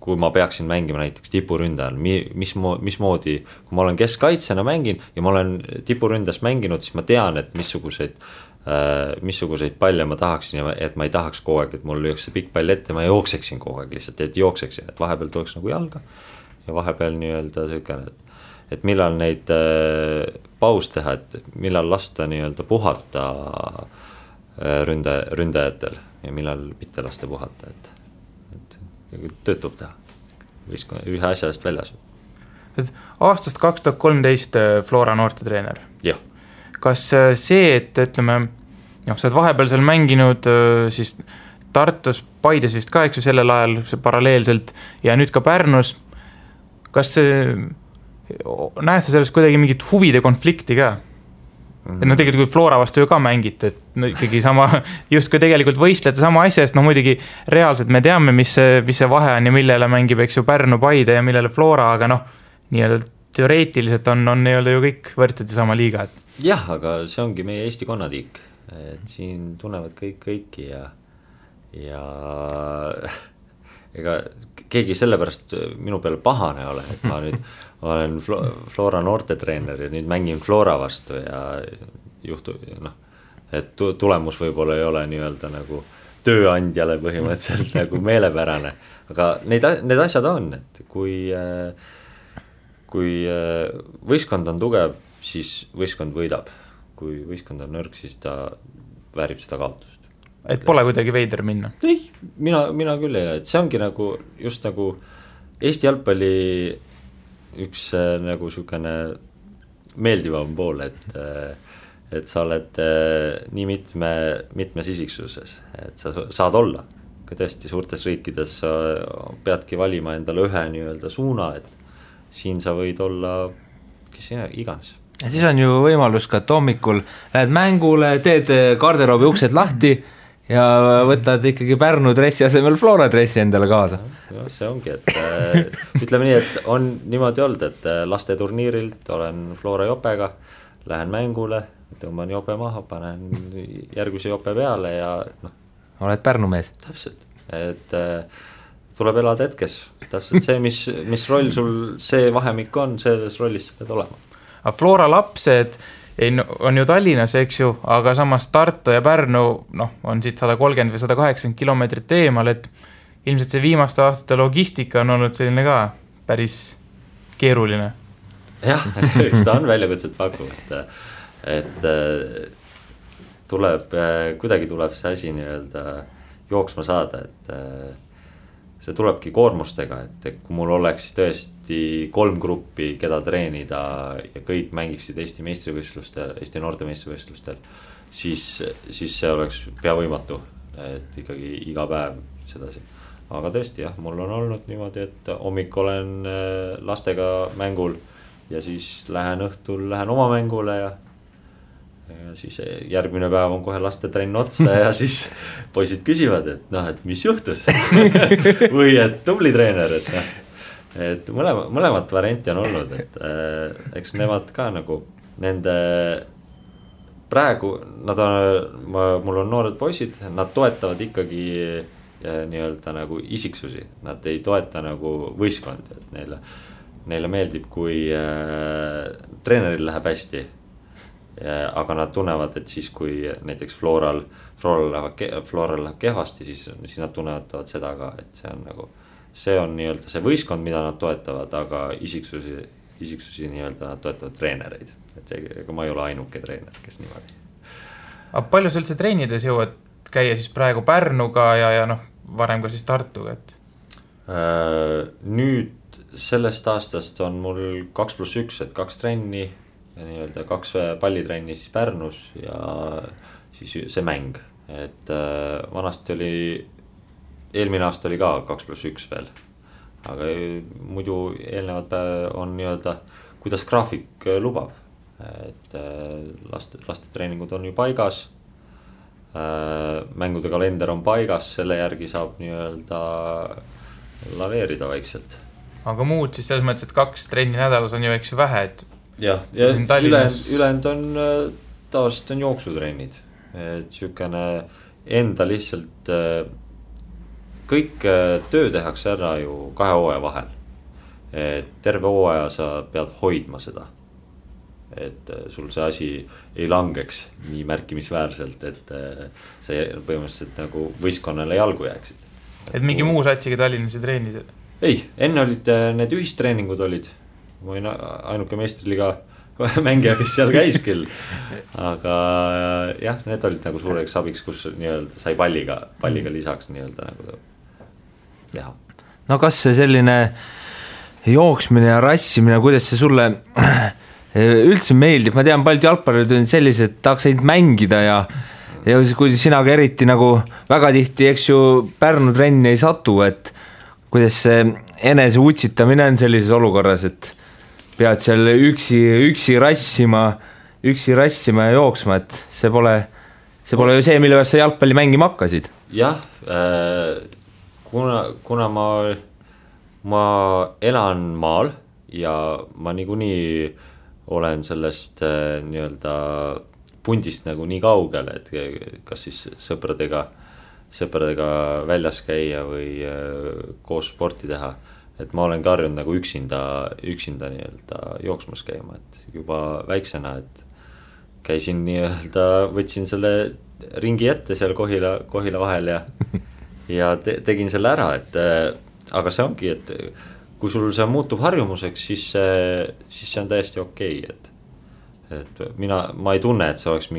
kui ma peaksin mängima näiteks tipuründajal, mismoodi, kui ma olen keskkaitsena mängin ja ma olen tipuründas mänginud, siis ma tean, et missuguseid palle ma tahaksin ja et ma ei tahaks kogu aeg, et mul lüüks see pikk pall ette, ma jookseksin kogu aeg lihtsalt, et jookseksin, et vahepeal tuleks nagu jalga ja vahepeal niisugune, et millal neid paus teha, et millal lasta puhata ründajatel ja millal mitte lasta puhata, et töötub teha ühe asja eest väljas. Aastast 2013 Flora noortetreener. Jah. Kas see, et ütleme, sa oled vahepeal seal mänginud siis Tartus, Paides vist ka, eks ju, sellel ajal paralleelselt ja nüüd ka Pärnus, kas näed sa sellest kuidagi mingit huvide konflikti ka? Et tegelikult kui Flora vastu ju ka mängite, et ikkagi sama, just kui tegelikult võistlete sama asja eest, muidugi reaalselt me teame, mis see vahe on ja millele mängib, eks ju, Pärnu, Paide ja millele Flora, aga nii-öelda teoreetiliselt on nii-öelda ju kõik võrdsed ja sama liiga. Jah, aga see ongi meie Eesti konnatiik, et siin tunnevad kõiki ja ega keegi sellepärast minu peale pahane ole, et ma nüüd olen Flora noortetreener ja nüüd mängin Flora vastu ja et tulemus võib-olla ei ole nii-öelda nagu tööandjale põhimõtteliselt nagu meelepärane, aga need asjad on, et kui võistkond on tugev, siis võistkond võidab, kui võistkond on nõrk, siis ta väärib seda kaotust. Et pole kuidagi veider minna? Ei, mina küll ei, et see ongi nagu just nagu Eesti jalgpalli üks nagu niisugune meeldivam pool, et sa oled nii mitmes isiksuses, et sa saad olla. Kui tõesti suurtes riikides sa peadki valima endale ühe nii-öelda suuna, et siin sa võid olla kes iganes. Ja siis on ju võimalus ka, et hommikul lähed mängule, teed garderoobi uksed lahti ja võtad ikkagi Pärnu dressi asemel Flora dressi endale kaasa. Ja, see ongi, et ütleme nii, et on niimoodi olnud, et laste turniirilt olen Flora jopega, lähen mängule, tõmban jope maha, panen järgmise jope peale ja oled Pärnu mees. Täpselt, et tuleb elada hetkes, täpselt see, mis roll sul see vahemik on, selles rollis pead olema. Aga Flora lapsed on ju Tallinnas, eks ju, aga samas Tartu ja Pärnu on siit 130 või 180 kilomeetrit eemal, et ilmselt see viimaste aastate logistika on olnud selline ka päris keeruline. Jah, ta on väljakutset paku, et kuidagi tuleb see asi nii-öelda jooksma saada, et see tulebki koormustega, et kui mul oleks tõesti 3 gruppi, keda treenida ja kõik mängiksid Eesti meistrivõistlustel, Eesti noorte meistrivõistlustel, siis see oleks pea võimatu, et ikkagi iga päev sedasi. Aga tõesti jah, mul on olnud niimoodi, et hommik olen lastega mängul ja siis lähen oma mängule ja siis järgmine päev on kohe laste trenn otsa ja siis poisid küsivad, et mis juhtus või et tubli treener, et mõlemat varianti on olnud, et eks nemad ka nagu nende praegu mul on noored poisid, nad toetavad ikkagi nii-öelda nagu isiksusi, nad ei toeta nagu võistkondi, et neile meeldib, kui treeneril läheb hästi. Aga nad tunnevad, et siis kui näiteks Floral läheb kehvasti, siis nad tunnevad seda ka, et see on nii-öelda see võistkond, mida nad toetavad, aga isiksusi isiksusi nii-öelda toetavad treenereid, et ega ma ei ole ainuke treener, kes niimoodi. Aga palju sa üldse treenides jõuad käia siis praegu Pärnuga ja noh, varem ka siis Tartuga, et? Nüüd sellest aastast on mul 2+1, et 2 trenni ja nii-öelda 2 pallitrenni siis Pärnus ja siis see mäng, et vanasti oli, eelmine aasta oli ka 2+1 veel. Aga muidu eelnevad on nii-öelda, kuidas graafik lubab, et laste treeningud on ju paigas, mängude kalender on paigas, selle järgi saab nii-öelda laveerida vaikselt. Aga muud siis selles mõttes, et 2 trenni nädalas on ju eks ju vähe, et ja ülend on tavaliselt on jooksutrennid, et sükene enda lihtsalt kõik töö tehakse ära ju 2 hooaja vahel, et terve hooaja sa pead hoidma seda, et sul see asi ei langeks nii märkimisväärselt, et see põhimõtteliselt nagu võistkonnale jalgu jääksid. Et mingi muu satsiga Tallinnas ei treenis? Ei, enne olid need ühistreeningud olid, ma olin ainuke meistriliga mängija, kes seal käis küll, aga jah, need olid nagu suureks abiks, kus nii-öelda sai palliga lisaks nii-öelda nagu teha. No kas see selline jooksmine ja rassimine, kuidas see sulle üldse meeldib? Ma tean, paljud jalgpallurid on sellised, tahaks ainult mängida ja kui sina ka eriti nagu väga tihti, eks ju, Pärnu trenni ei satu, et kuidas see enese utsitamine on sellises olukorras, et pead seal üksi rassima ja jooksma, et see pole ju see, mille pärast sa jalgpalli mängima hakkasid. Jah, kuna ma elan maal ja ma niikuinii olen sellest nii-öelda pundist nagu nii kaugel, et kas siis sõpradega väljas käia või koos sporti teha, et ma olen ka harjunud nagu üksinda nii-öelda jooksmas käima, et juba väiksena, et käisin nii-öelda, võtsin selle ringi ette seal Kohila vahel ja tegin selle ära, et aga see ongi, et kui sul see muutub harjumuseks, siis see on täiesti okei, et ma ei tunne, et see oleks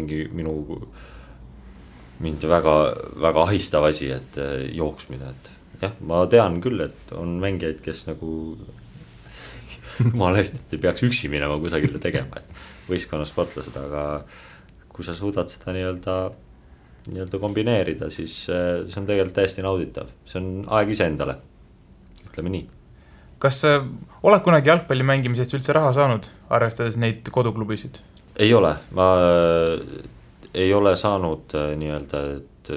mind väga ahistav asi, et jooksmine, et jah, ma tean küll, et on mängijaid, kes nagu jumala eest, et ei peaks üksi minema kusagile tegema, et võistkonnasportlased, aga kui sa suudad seda nii-öelda kombineerida, siis see on tegelikult täiesti nauditav, see on aeg iseendale, ütleme nii. Kas oled kunagi jalgpalli mängimisest üldse raha saanud, arvestades neid koduklubisid? Ei ole, ma ei ole saanud nii-öelda, et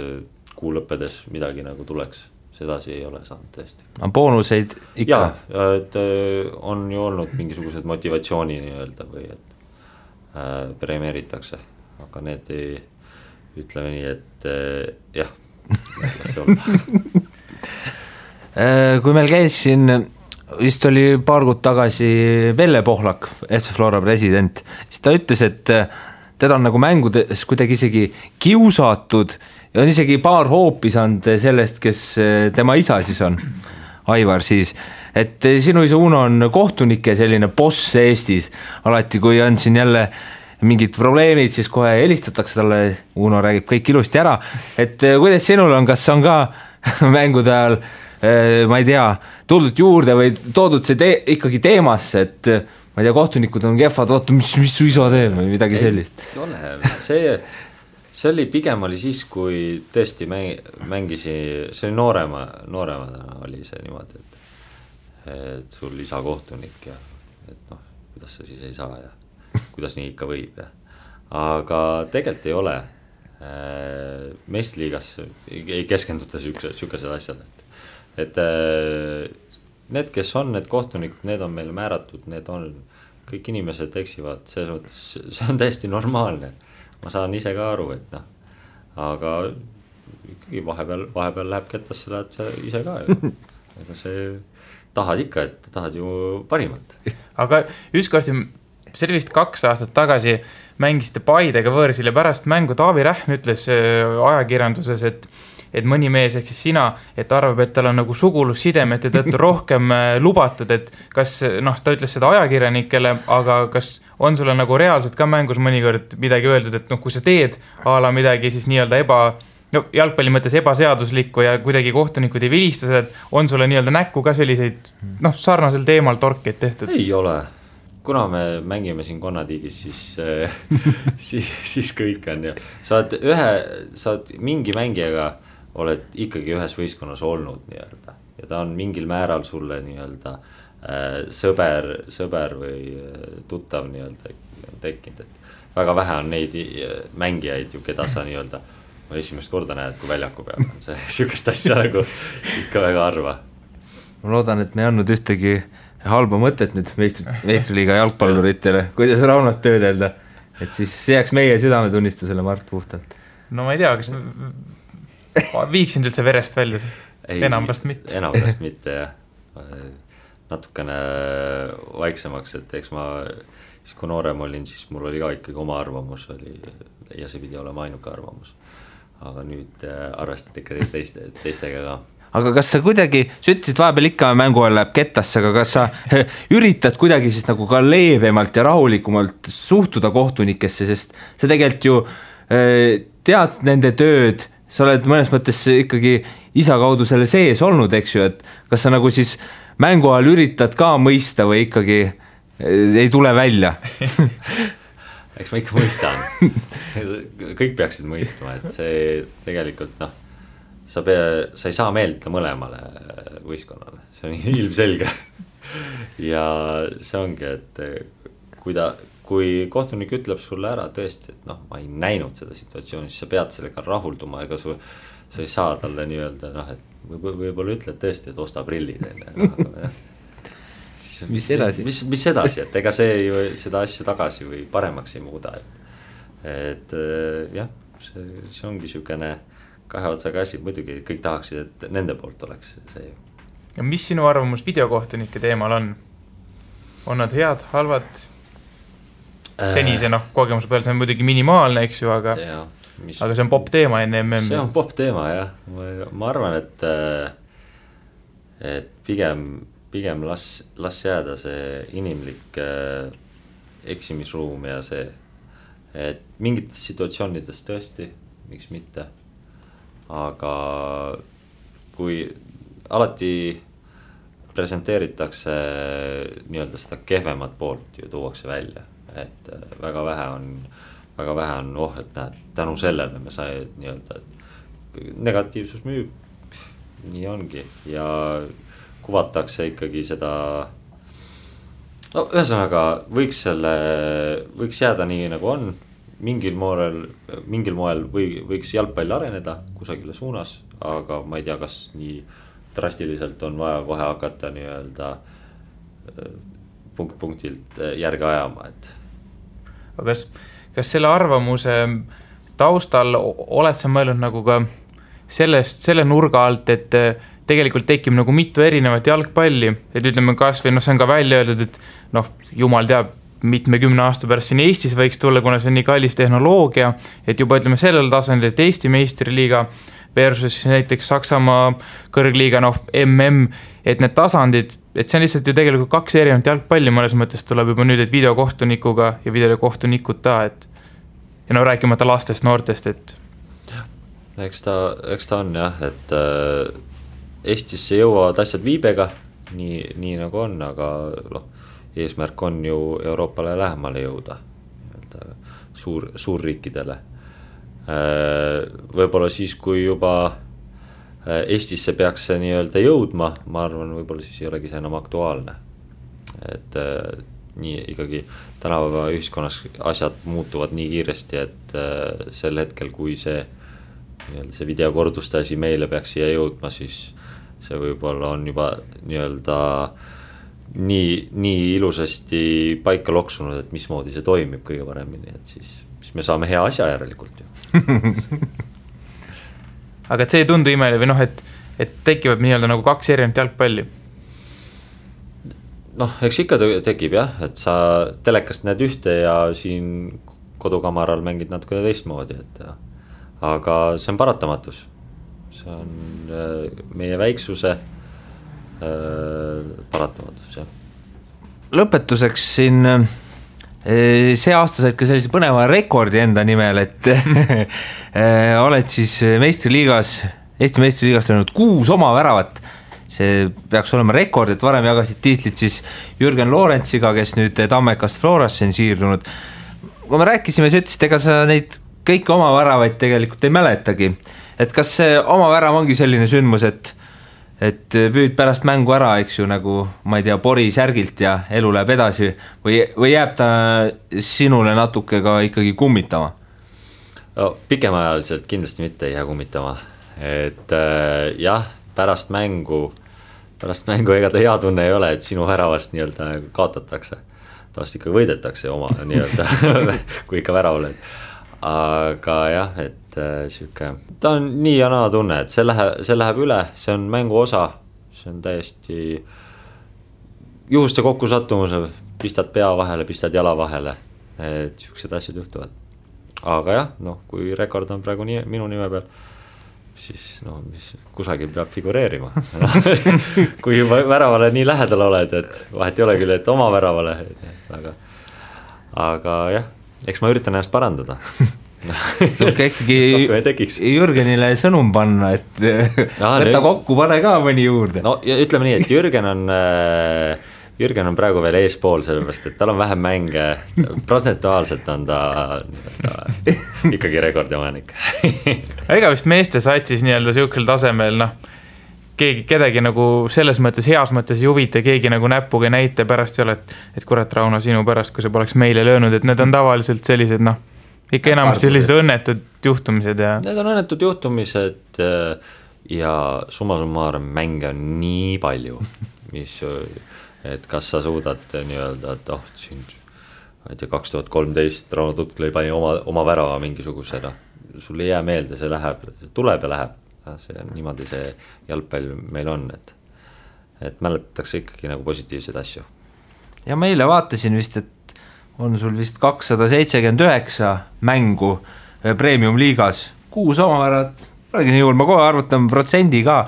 kuu lõppedes midagi nagu tuleks, sedasi ei ole saanud tõesti. Boonuseid ikka? Jaa, et on ju olnud mingisugused motivatsiooni nii-öelda või et premeeritakse, aga need ei, ütleme nii, et jah, las see olla. Kui meil käis siin, vist oli paar kuud tagasi Velle Pohlak, SV Flora president, siis ta ütles, et teda on nagu mängudes kuidagi isegi kiusatud ja on isegi paar hoopi saanud sellest, kes tema isa siis on, Aivar siis, et sinu isa Uno on kohtunike selline boss Eestis, alati kui on siin jälle mingid probleemid, siis kohe helistatakse talle, Uno räägib kõik ilusti ära, et kuidas sinul on, kas on ka mängude ajal, ma ei tea, tuldud juurde või toodud see ikkagi teemasse, et ma ei tea, kohtunikud on kehvad, vaata, mis su isa teeb või midagi sellist? See oli pigem oli siis, kui tõesti mängisi, see oli nooremana oli see niimoodi, et sul isa kohtunik ja et noh, kuidas sa siis ei saa ja kuidas nii ikka võib ja. Aga tegelikult ei ole meistriliigas ei keskenduta sükased asjad, et need, kes on need kohtunikud, need on meil määratud, need on, kõik inimesed eksivad, see on täiesti normaalne, ma saan ise ka aru, et noh, aga ikkagi vahepeal läheb kettasse, lähed sa ise ka ju, ega see tahad ikka, et tahad ju parimat. Aga ükskord see oli vist 2 aastat tagasi mängisite Paidega võõrsil ja pärast mängu Taavi Rähm ütles ajakirjanduses, et mõni mees ehk siis sina, et arvab, et tal on nagu sugulussidemete tõttu rohkem lubatud, et kas, ta ütles seda ajakirjanikele, aga kas on sulle nagu reaalselt ka mängus mõnikord midagi öeldud, et kui sa teed a la midagi siis nii-öelda jalgpalli mõttes ebaseaduslikku ja kuidagi kohtunikud ei vilista seda, et on sulle nii-öelda näkku ka selliseid sarnasel teemal torkeid tehtud? Ei ole. Kuna me mängime siin Konnatiigis, siis kõik on ju. Saad mingi mängijaga oled ikkagi ühes võistkonnas olnud nii-öelda. Ja ta on mingil määral sulle nii-öelda sõber või tuttav nii-öelda tekkinud. Et väga vähe on neid mängijaid ju, keda sa nii-öelda esimest korda näed, kui väljaku peab. See sihukest asja nagu ikka väga harva. Ma loodan, et me ei andnud ühtegi halba mõtet nüüd meistriliiga jalgpalluritele, kuidas Raunot töödelda, et siis see jääks meie südametunnistusele Mart puhtalt. No ma ei tea, kas viiksin üldse verest välja? Enamast mitte. Enamast mitte, jah. Natukene vaiksemaks, et eks ma, siis kui noorem olin, siis mul oli ka ikkagi oma arvamus oli, ja see pidi olema ainuke arvamus. Aga nüüd arvestad ikka teistega ka. Aga kas sa kuidagi, sa ütlesid vahepeal ikka mängu ajal läheb kettasse, aga kas sa üritad kuidagi siis nagu ka leebemalt ja rahulikumalt suhtuda kohtunikesse, sest sa tegelikult ju tead nende tööd, sa oled mõnes mõttes ikkagi isa kaudu selle sees olnud, eks ju, et kas sa nagu siis mängu ajal üritad ka mõista või ikkagi ei tule välja? Eks ma ikka mõistan. Kõik peaksid mõistma, et see tegelikult sa ei saa meeldida mõlemale võistkonnale, see on ilmselge. Ja see ongi, et kui kohtunik ütleb sulle ära tõesti, et ma ei näinud seda situatsiooni, siis sa pead sellega rahulduma, ega sa ei saa talle nii-öelda, et võib-olla ütled tõesti, et osta prillid. Mis edasi? Mis edasi, et ega see ju seda asja tagasi või paremaks ei muuda. Et jah, see ongi sükene kahe otsaga asi, muidugi kõik tahaksid, et nende poolt oleks see ju. Ja mis sinu arvamus videokohtunike teemal on? On nad head, halvad? Senise kogemuse peal see on muidugi minimaalne, eks ju, aga see on pop teema enne MM. See on pop teema, jah. Ma arvan, et pigem las jääda see inimlik eksimisruum ja see, et mingites situatsioonides tõesti, miks mitte. Aga kui alati presenteeritakse nii-öelda seda kehvemat poolt ju tuuakse välja, et väga vähe on, et näed, tänu sellele me sai nii-öelda, et negatiivsus müüb, nii ongi ja kuvatakse ikkagi seda, ühesõnaga võiks jääda nii nagu on. Mingil moel võiks jalgpall areneda kusagile suunas, aga ma ei tea, kas nii drastiliselt on vaja kohe hakata nii-öelda punktilt järge ajama, et. Aga kas selle arvamuse taustal oled sa mõelnud nagu ka selle nurga alt, et tegelikult tekib nagu mitu erinevat jalgpalli, et ütleme kas või see on ka välja öeldud, et jumal teab, mitmekümne aasta pärast siin Eestis võiks tulla, kuna see on nii kallis tehnoloogia, et juba ütleme sellel tasandil, et Eesti meistriliiga versus näiteks Saksamaa kõrgliiga, MM, et need tasandid, et see on lihtsalt ju tegelikult kaks erinevat jalgpalli, mõnes mõttes tuleb juba nüüd, et videokohtunikuga ja videokohtunikuta, et ja rääkimata lastest, noortest, et. Eks ta on jah, et Eestisse jõuavad asjad viibega, nii nagu on, aga eesmärk on ju Euroopale lähemale jõuda, suurriikidele. Võib-olla siis, kui juba Eestisse peaks see nii-öelda jõudma, ma arvan, võib-olla siis ei olegi see enam aktuaalne. Et nii ikkagi tänapäeva ühiskonnas asjad muutuvad nii kiiresti, et sel hetkel, kui see videokorduste asi meile peaks siia jõudma, siis see võib-olla on juba nii-öelda nii ilusasti paika loksunud, et mismoodi see toimib kõige paremini, et siis me saame hea asja järelikult ju. Aga et see ei tundu imeli või et tekivad nii-öelda nagu kaks erinevat jalgpalli? Eks ikka tekib jah, et sa telekast näed ühte ja siin kodukamaral mängid natuke teistmoodi, et aga see on paratamatus. See see on meie väiksuse paratamatus, jah. Lõpetuseks siin see aasta said ka sellise põneva rekordi enda nimel, et oled siis meistriliigas, Eesti meistriliigas löönud 6 oma väravat. See peaks olema rekord, et varem jagasid tiitlit siis Jürgen Loorentsiga, kes nüüd Tammekast Florasse on siirdunud. Kui me rääkisime, sa ütlesid, ega sa neid kõiki oma väravaid tegelikult ei mäletagi. Et kas see oma värav ongi selline sündmus, et püüd pärast mängu ära, eks ju, nagu ma ei tea, pori särgilt ja elu läheb edasi või jääb ta sinule natuke ka ikkagi kummitama? No, pikemaajaliselt kindlasti mitte ei jää kummitama, et jah, pärast mängu ega ta hea tunne ei ole, et sinu väravast nii-öelda kaotatakse, tavast ikka võidetakse oma nii-öelda, kui ikka värav oled, aga jah, et siuke, ta on nii ja naa tunne, et see läheb üle, see on mängu osa, see on täiesti juhuste kokkusattumuse, pistad pea vahele, pistad jala vahele, et siuksed asjad juhtuvad. Aga jah, kui rekord on praegu minu nime peal, siis mis kusagil peab figureerima. Kui väravale nii lähedal oled, et vahet ei ole küll, et oma väravale, aga jah, eks ma üritan ennast parandada. Tulka ikkagi Jürgenile sõnum panna, et võtta kokku, pane ka mõni juurde. No ja ütleme nii, et Jürgen on praegu veel eespool, sellepärast, et tal on vähem mänge, protsentuaalselt on ta ikkagi rekordimanik. Ega vist meeste satsis nii-öelda siukel tasemel, kedagi nagu selles mõttes, heas mõttes ei huvita, keegi nagu näpuga näite pärast seal, et kurat, Rauno, sinu pärast, kui sa poleks meile löönud, et need on tavaliselt sellised, ikka enamasti sellised õnnetud juhtumised ja... Need on õnnetud juhtumised ja summa summarum mänge on nii palju, et kas sa suudad nii-öelda, et siin 2013 Rauno Tutklõi pani oma värava mingisugusena, sul ei jää meelde, see tuleb ja läheb, see on niimoodi see jalgpall meil on, et mäletatakse ikkagi nagu positiivseid asju. Ja meile vaatasin vist, et on sul vist 279 mängu premium-liigas, 6 omavärat, praegu nii juhul, ma kohe arvutan protsendi ka,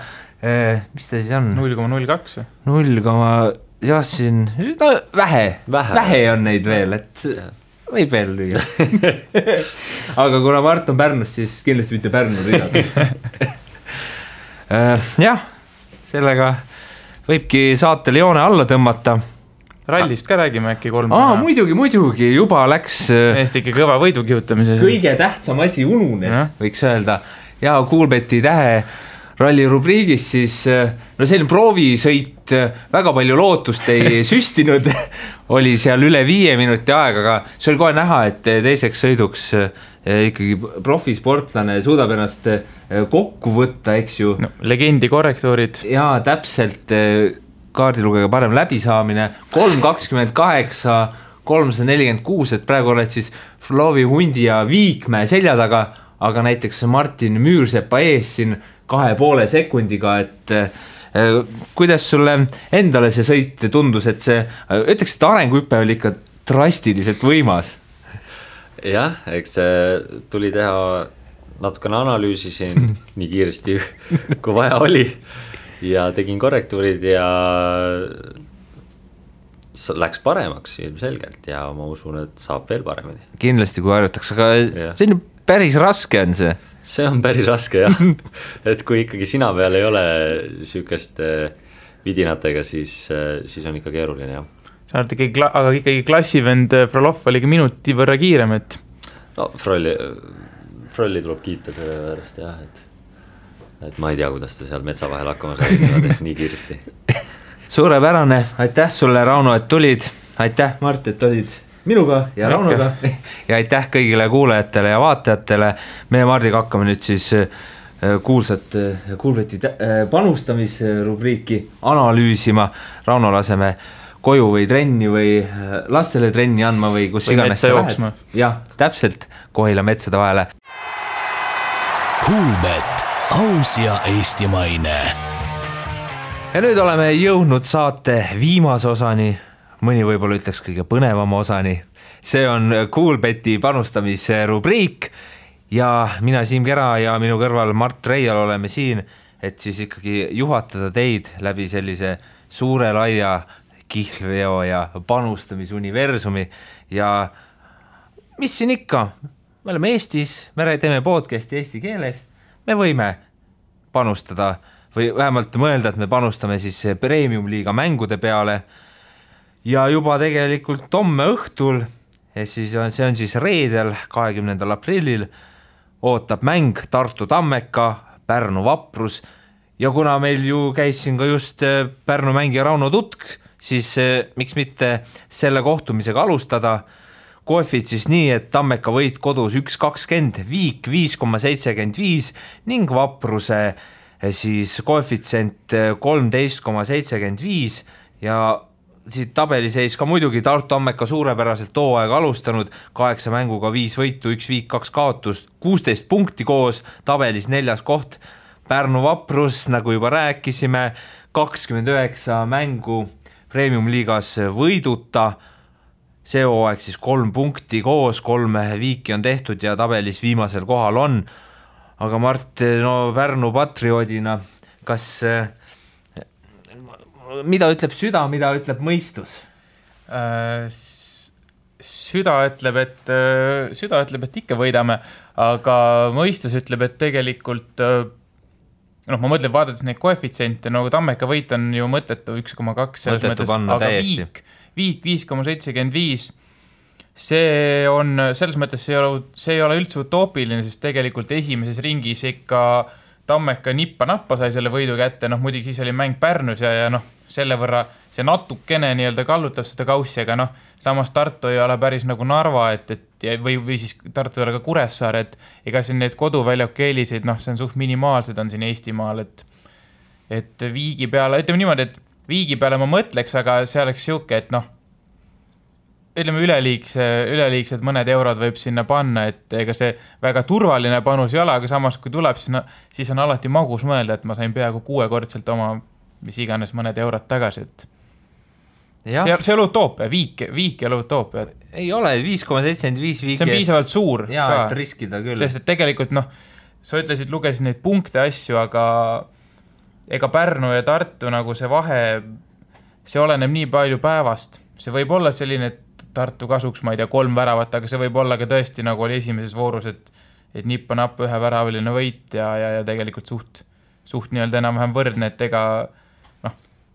mis ta siis on? 0,02 jah, siin, vähe on neid veel, et võib veel lüüa. Aga kuna Mart on Pärnust, siis kindlasti mitte Pärnu rida. Jah, sellega võibki saatele joone alla tõmmata. Rallist ka räägime äkki 3. Muidugi, juba läks Eesti ikka kõva võidukihutamise. Kõige tähtsam asi ununes, võiks öelda. Ja Kuulbeti tähe ralli rubriigis siis, selline proovisõit, väga palju lootust ei süstinud, oli seal üle 5 minuti aega, aga see oli kohe näha, et teiseks sõiduks ikkagi profisportlane suudab ennast kokku võtta, eks ju. Legendi korrektuurid. Ja täpselt kaardilugega parem läbisaamine, 3.28, 346, et praegu oled siis Flovi Hundi ja Viikmäe selja taga, aga näiteks Martin Müürsepa ees siin 2,5 sekundiga, et kuidas sulle endale see sõit tundus, et see, ütleks, et arenguhüpe oli ikka drastiliselt võimas? Jah, eks see tuli teha natukene analüüsi siin nii kiiresti, kui vaja oli ja tegin korrektuurid ja läks paremaks ilmselgelt ja ma usun, et saab veel paremini. Kindlasti, kui harjutaks, aga selline päris raske on see. See on päris raske, jah. Et kui ikkagi sina peal ei ole sükest vidinatega, siis on ikka keeruline, jah. Sa oled ikkagi klassivend Frolov oli minuti võrra kiirem, et... No, Frolli tuleb kiita selle pärast, jah, et ma ei tea, kuidas ta seal metsa vahel hakkama sai nii kiiresti. Suurepärane, aitäh sulle, Rauno, et tulid. Aitäh, Mart, et olid minuga ja Raunoga. Ja aitäh kõigile kuulajatele ja vaatajatele. Meie Mardiga hakkame nüüd siis kuulsat Kuulbeti panustamisrubriiki analüüsima. Rauno laseme koju või trenni või lastele trenni andma või kus iganes sa lähed. Jah, täpselt Kohila metsade vahele. Kuulbet, aus ja eestimaine. Ja nüüd oleme jõudnud saate viimase osani, mõni võib-olla ütleks kõige põnevama osani. See on Kuulbeti panustamise rubriik ja mina Siim Kera ja minu kõrval Mart Reial oleme siin, et siis ikkagi juhatada teid läbi sellise suure laia kihlveo ja panustamisuniversumi ja mis siin ikka, me oleme Eestis, me teeme podcasti eesti keeles, me võime panustada või vähemalt mõelda, et me panustame siis Premium-liiga mängude peale ja juba tegelikult homme õhtul, see on siis reedel 20. aprillil, ootab mäng Tartu Tammeka, Pärnu Vaprus ja kuna meil ju käis siin ka just Pärnu mängija Rauno Tutk, siis miks mitte selle kohtumisega alustada, koefid siis nii, et Tammeka võit kodus 1.20, Viik 5.75 ning Vapruse siis koefitsient 13.75 ja siit tabeliseis ka muidugi Tartu Tammeka suurepäraselt hooaega alustanud, 8 mänguga 5 võitu, 1 viik, 2 kaotust, 16 punkti koos, tabelis 4. koht, Pärnu Vaprus, nagu juba rääkisime, 29 mängu Premium-liigas võiduta, see hooaeg siis 3 punkti koos, 3 viiki on tehtud ja tabelis viimasel kohal on. Aga Mart, no Pärnu patrioodina, kas mida ütleb süda, mida ütleb mõistus? Süda ütleb, et ikka võidame, aga mõistus ütleb, et tegelikult ma mõtlen, vaadates neid koefitsiente, nagu Tammeka võit on ju mõttetu 1,2 selles mõttes, aga Viik 5,75, see on selles mõttes, see ei ole üldse utoopiline, sest tegelikult esimeses ringis ikka Tammeka nippa-nappa sai selle võidu kätte, muidugi siis oli mäng Pärnus ja selle võrra see natukene nii-öelda kallutab seda kaussi, aga samas Tartu ei ole päris nagu Narva, või siis Tartu ei ole ka Kuressaare, et ega siin need koduväljaku eeliseid, see on suht minimaalsed on siin Eestimaal, et Viigi peale, ütleme niimoodi, et Viigi peale ma mõtleks, aga see oleks siuke, et ütleme üleliigsed mõned eurod võib sinna panna, et ega see väga turvaline panus ei ole, aga samas kui tuleb, siis on alati magus mõelda, et ma sain peaaegu 6-kordselt oma mis iganes mõned eurod tagasi, et see ei ole utoopia, viik ei ole utoopia. Ei ole, 5,75 viiki. See on piisavalt suur ka, et riskida küll. Sest et tegelikult, sa ütlesid, lugesid neid punkte asju, aga ega Pärnu ja Tartu nagu see vahe, see oleneb nii palju päevast. See võib olla selline, et Tartu kasuks, ma ei tea, 3 väravat, aga see võib olla ka tõesti, nagu oli esimeses voorus, et nippa-nappa 1 väraviline võit ja tegelikult suht nii-öelda enam-vähem võrdne, et ega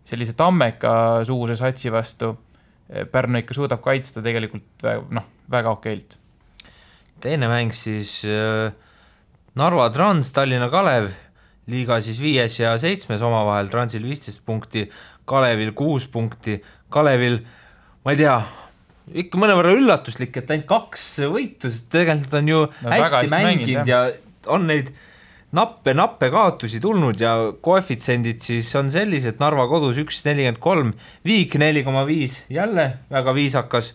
sellise Tammeka suuse satsi vastu Pärnu ikka suudab kaitsta tegelikult väga okeilt. Teine mäng siis Narva Trans, Tallinna Kalev, liiga siis 5. ja 7. omavahel, Transil 15 punkti, Kalevil 6 punkti, Kalevil, ma ei tea, ikka mõnevõrra üllatuslik, et ainult 2 võitu, sest tegelikult on ju hästi mänginud ja on neid nappe kaotusi tulnud ja koefitsendid siis on sellised, Narva kodus 1.43, Viik 4,5, jälle väga viisakas,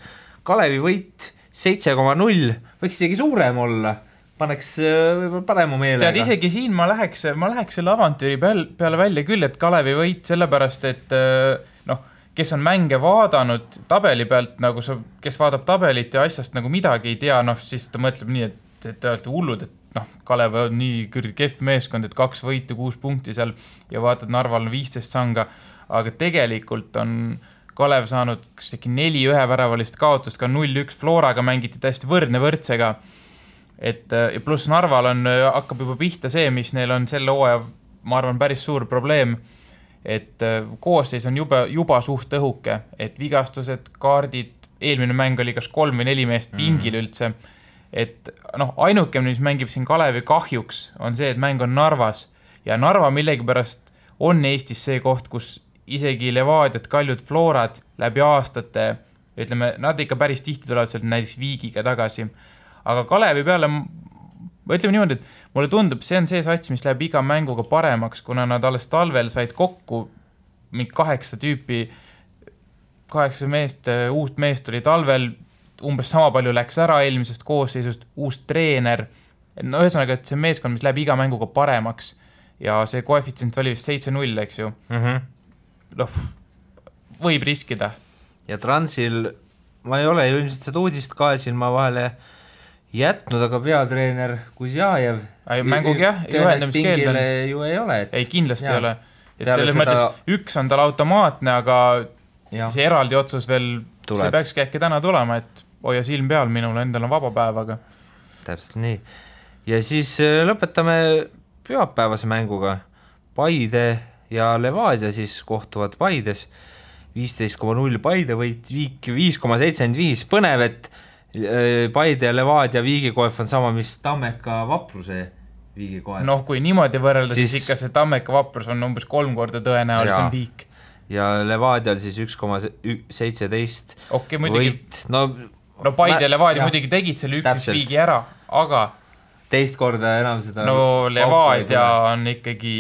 Kalevi võit 7,0, võiks isegi suurem olla, paneks võib-olla parema meelega. Tead, isegi siin ma läheks selle avantüüri peale välja küll, et Kalevi võit sellepärast, et kes on mänge vaadanud tabeli pealt, nagu kes vaatab tabelit ja asjast nagu midagi ei tea, siis ta mõtleb nii, et te olete hullud, et Kalev on nii kehv meeskond, et 2 võitu, 6 punkti seal ja vaatad, Narval on 15 sanga, aga tegelikult on Kalev saanud 4 üheväravalist kaotust, ka 0-1 Floraga mängiti täiesti võrdsega, et pluss Narval hakkab juba pihta see, mis neil on selle hooaja, ma arvan, päris suur probleem, et koosseis on juba suht õhuke, et vigastused, kaardid, eelmine mäng oli kas 3 või 4 meest pingil üldse, et ainuke, mis mängib siin Kalevi kahjuks, on see, et mäng on Narvas ja Narva millegipärast on Eestis see koht, kus isegi Levadiat, Kaljud, Florad läbi aastate, ütleme, nad ikka päris tihti tulevad sealt näiteks Viigiga tagasi, aga Kalevi peale, ütleme niimoodi, et mulle tundub, see on see sats, mis läheb iga mänguga paremaks, kuna nad alles talvel said kokku 8 tüüpi, 8 meest, uut meest tuli talvel, umbes sama palju läks ära eelmisest koosseisust, uus treener, ühesõnaga, et see meeskond, mis läheb iga mänguga paremaks ja see koefitsient oli vist 7-0, eks ju. Võib riskida. Ja Transil, ma ei ole ju ilmselt seda uudist ka siin, ma vahele jätnud, aga peatreener Kuzjajev mängugi jah, juhendamiskeeld on. ju ei ole. Ei, kindlasti ei ole. Et selles mõttes üks on tal automaatne, aga see eraldi otsus veel, see peakski äkki täna tulema, et hoia silm peal, minul endal on vaba päev, aga täpselt nii. Ja siis lõpetame pühapäevase mänguga. Paide ja Levadia siis kohtuvad Paides. 15,0 Paide võit, Viik 5,75. Põnev, et Paide ja Levadia viigikoef on sama, mis Tammeka Vapruse viigikoef. Noh, kui niimoodi võrrelda, siis ikka see Tammeka Vaprus on umbes 3 korda tõenäolisem Viik. Ja Levadia oli siis 1,17 võit. No Paide ja Levadia muidugi tegid selle 1 viigi ära, aga teist korda enam seda Levadia on ikkagi,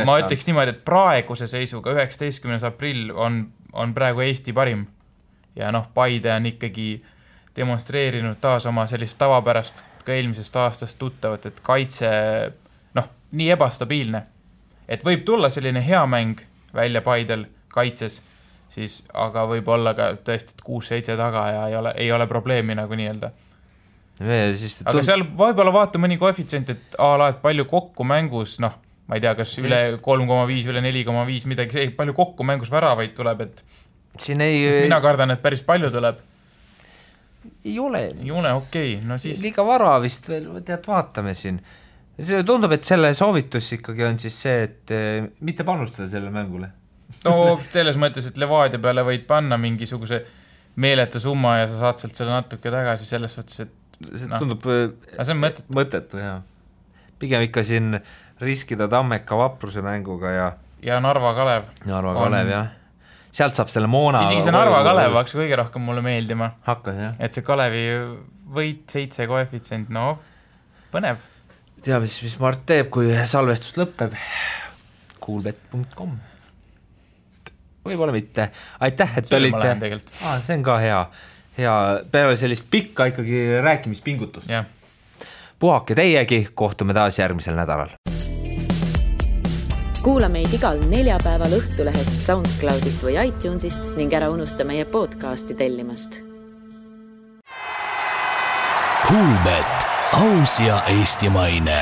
ma ütleks niimoodi, et praeguse seisuga 19. aprill on praegu Eesti parim. Ja Paide on ikkagi demonstreerinud taas oma sellist tavapärast ka eelmisest aastast tuttavat, et kaitse nii ebastabiilne. Et võib tulla selline hea mäng välja Paidel kaitses, siis, aga võib olla ka tõesti 6-7 taga ja ei ole probleemi nagu nii-öelda. Aga seal võib-olla vaata mõni koefitsient, et et palju kokku mängus, ma ei tea, kas üle 3,5, üle 4,5, midagi see, palju kokku mängus väravaid tuleb, et mina kardan, et päris palju tuleb. Ei ole, okei. No siis liiga vara vist veel, vaatame siin. See tundub, et selle soovitus ikkagi on siis see, et mitte panustada selle mängule. No selles mõttes, et Levadia peale võid panna mingisuguse meeletu summa ja sa saad sealt selle natuke tagasi selles võttes, et see tundub see on mõttetu, jah. Pigem ikka siin riskida Tammeka Vapruse mänguga ja Narva Kalev. Narva Kalev, jah. Sealt saab selle moona. Isegi see Narva Kalev hakkas kõige rohkem mulle meeldima. Hakkas, jah. Et see Kalevi võit 7 koefitsient, põnev. Teab, mis Mart teeb, kui salvestus lõpeb. Coolbet.com Võib-olla mitte. Aitäh, et olite. See on ka hea. Peale sellist pikka ikkagi rääkimispingutust. Yeah. puhake teiegi, kohtume taas järgmisel nädalal. Kuula meid igal neljapäeval Õhtulehest, SoundCloudist või iTunesist ning ära unusta meie podcasti tellimast. Coolbet, aus ja eestimaine.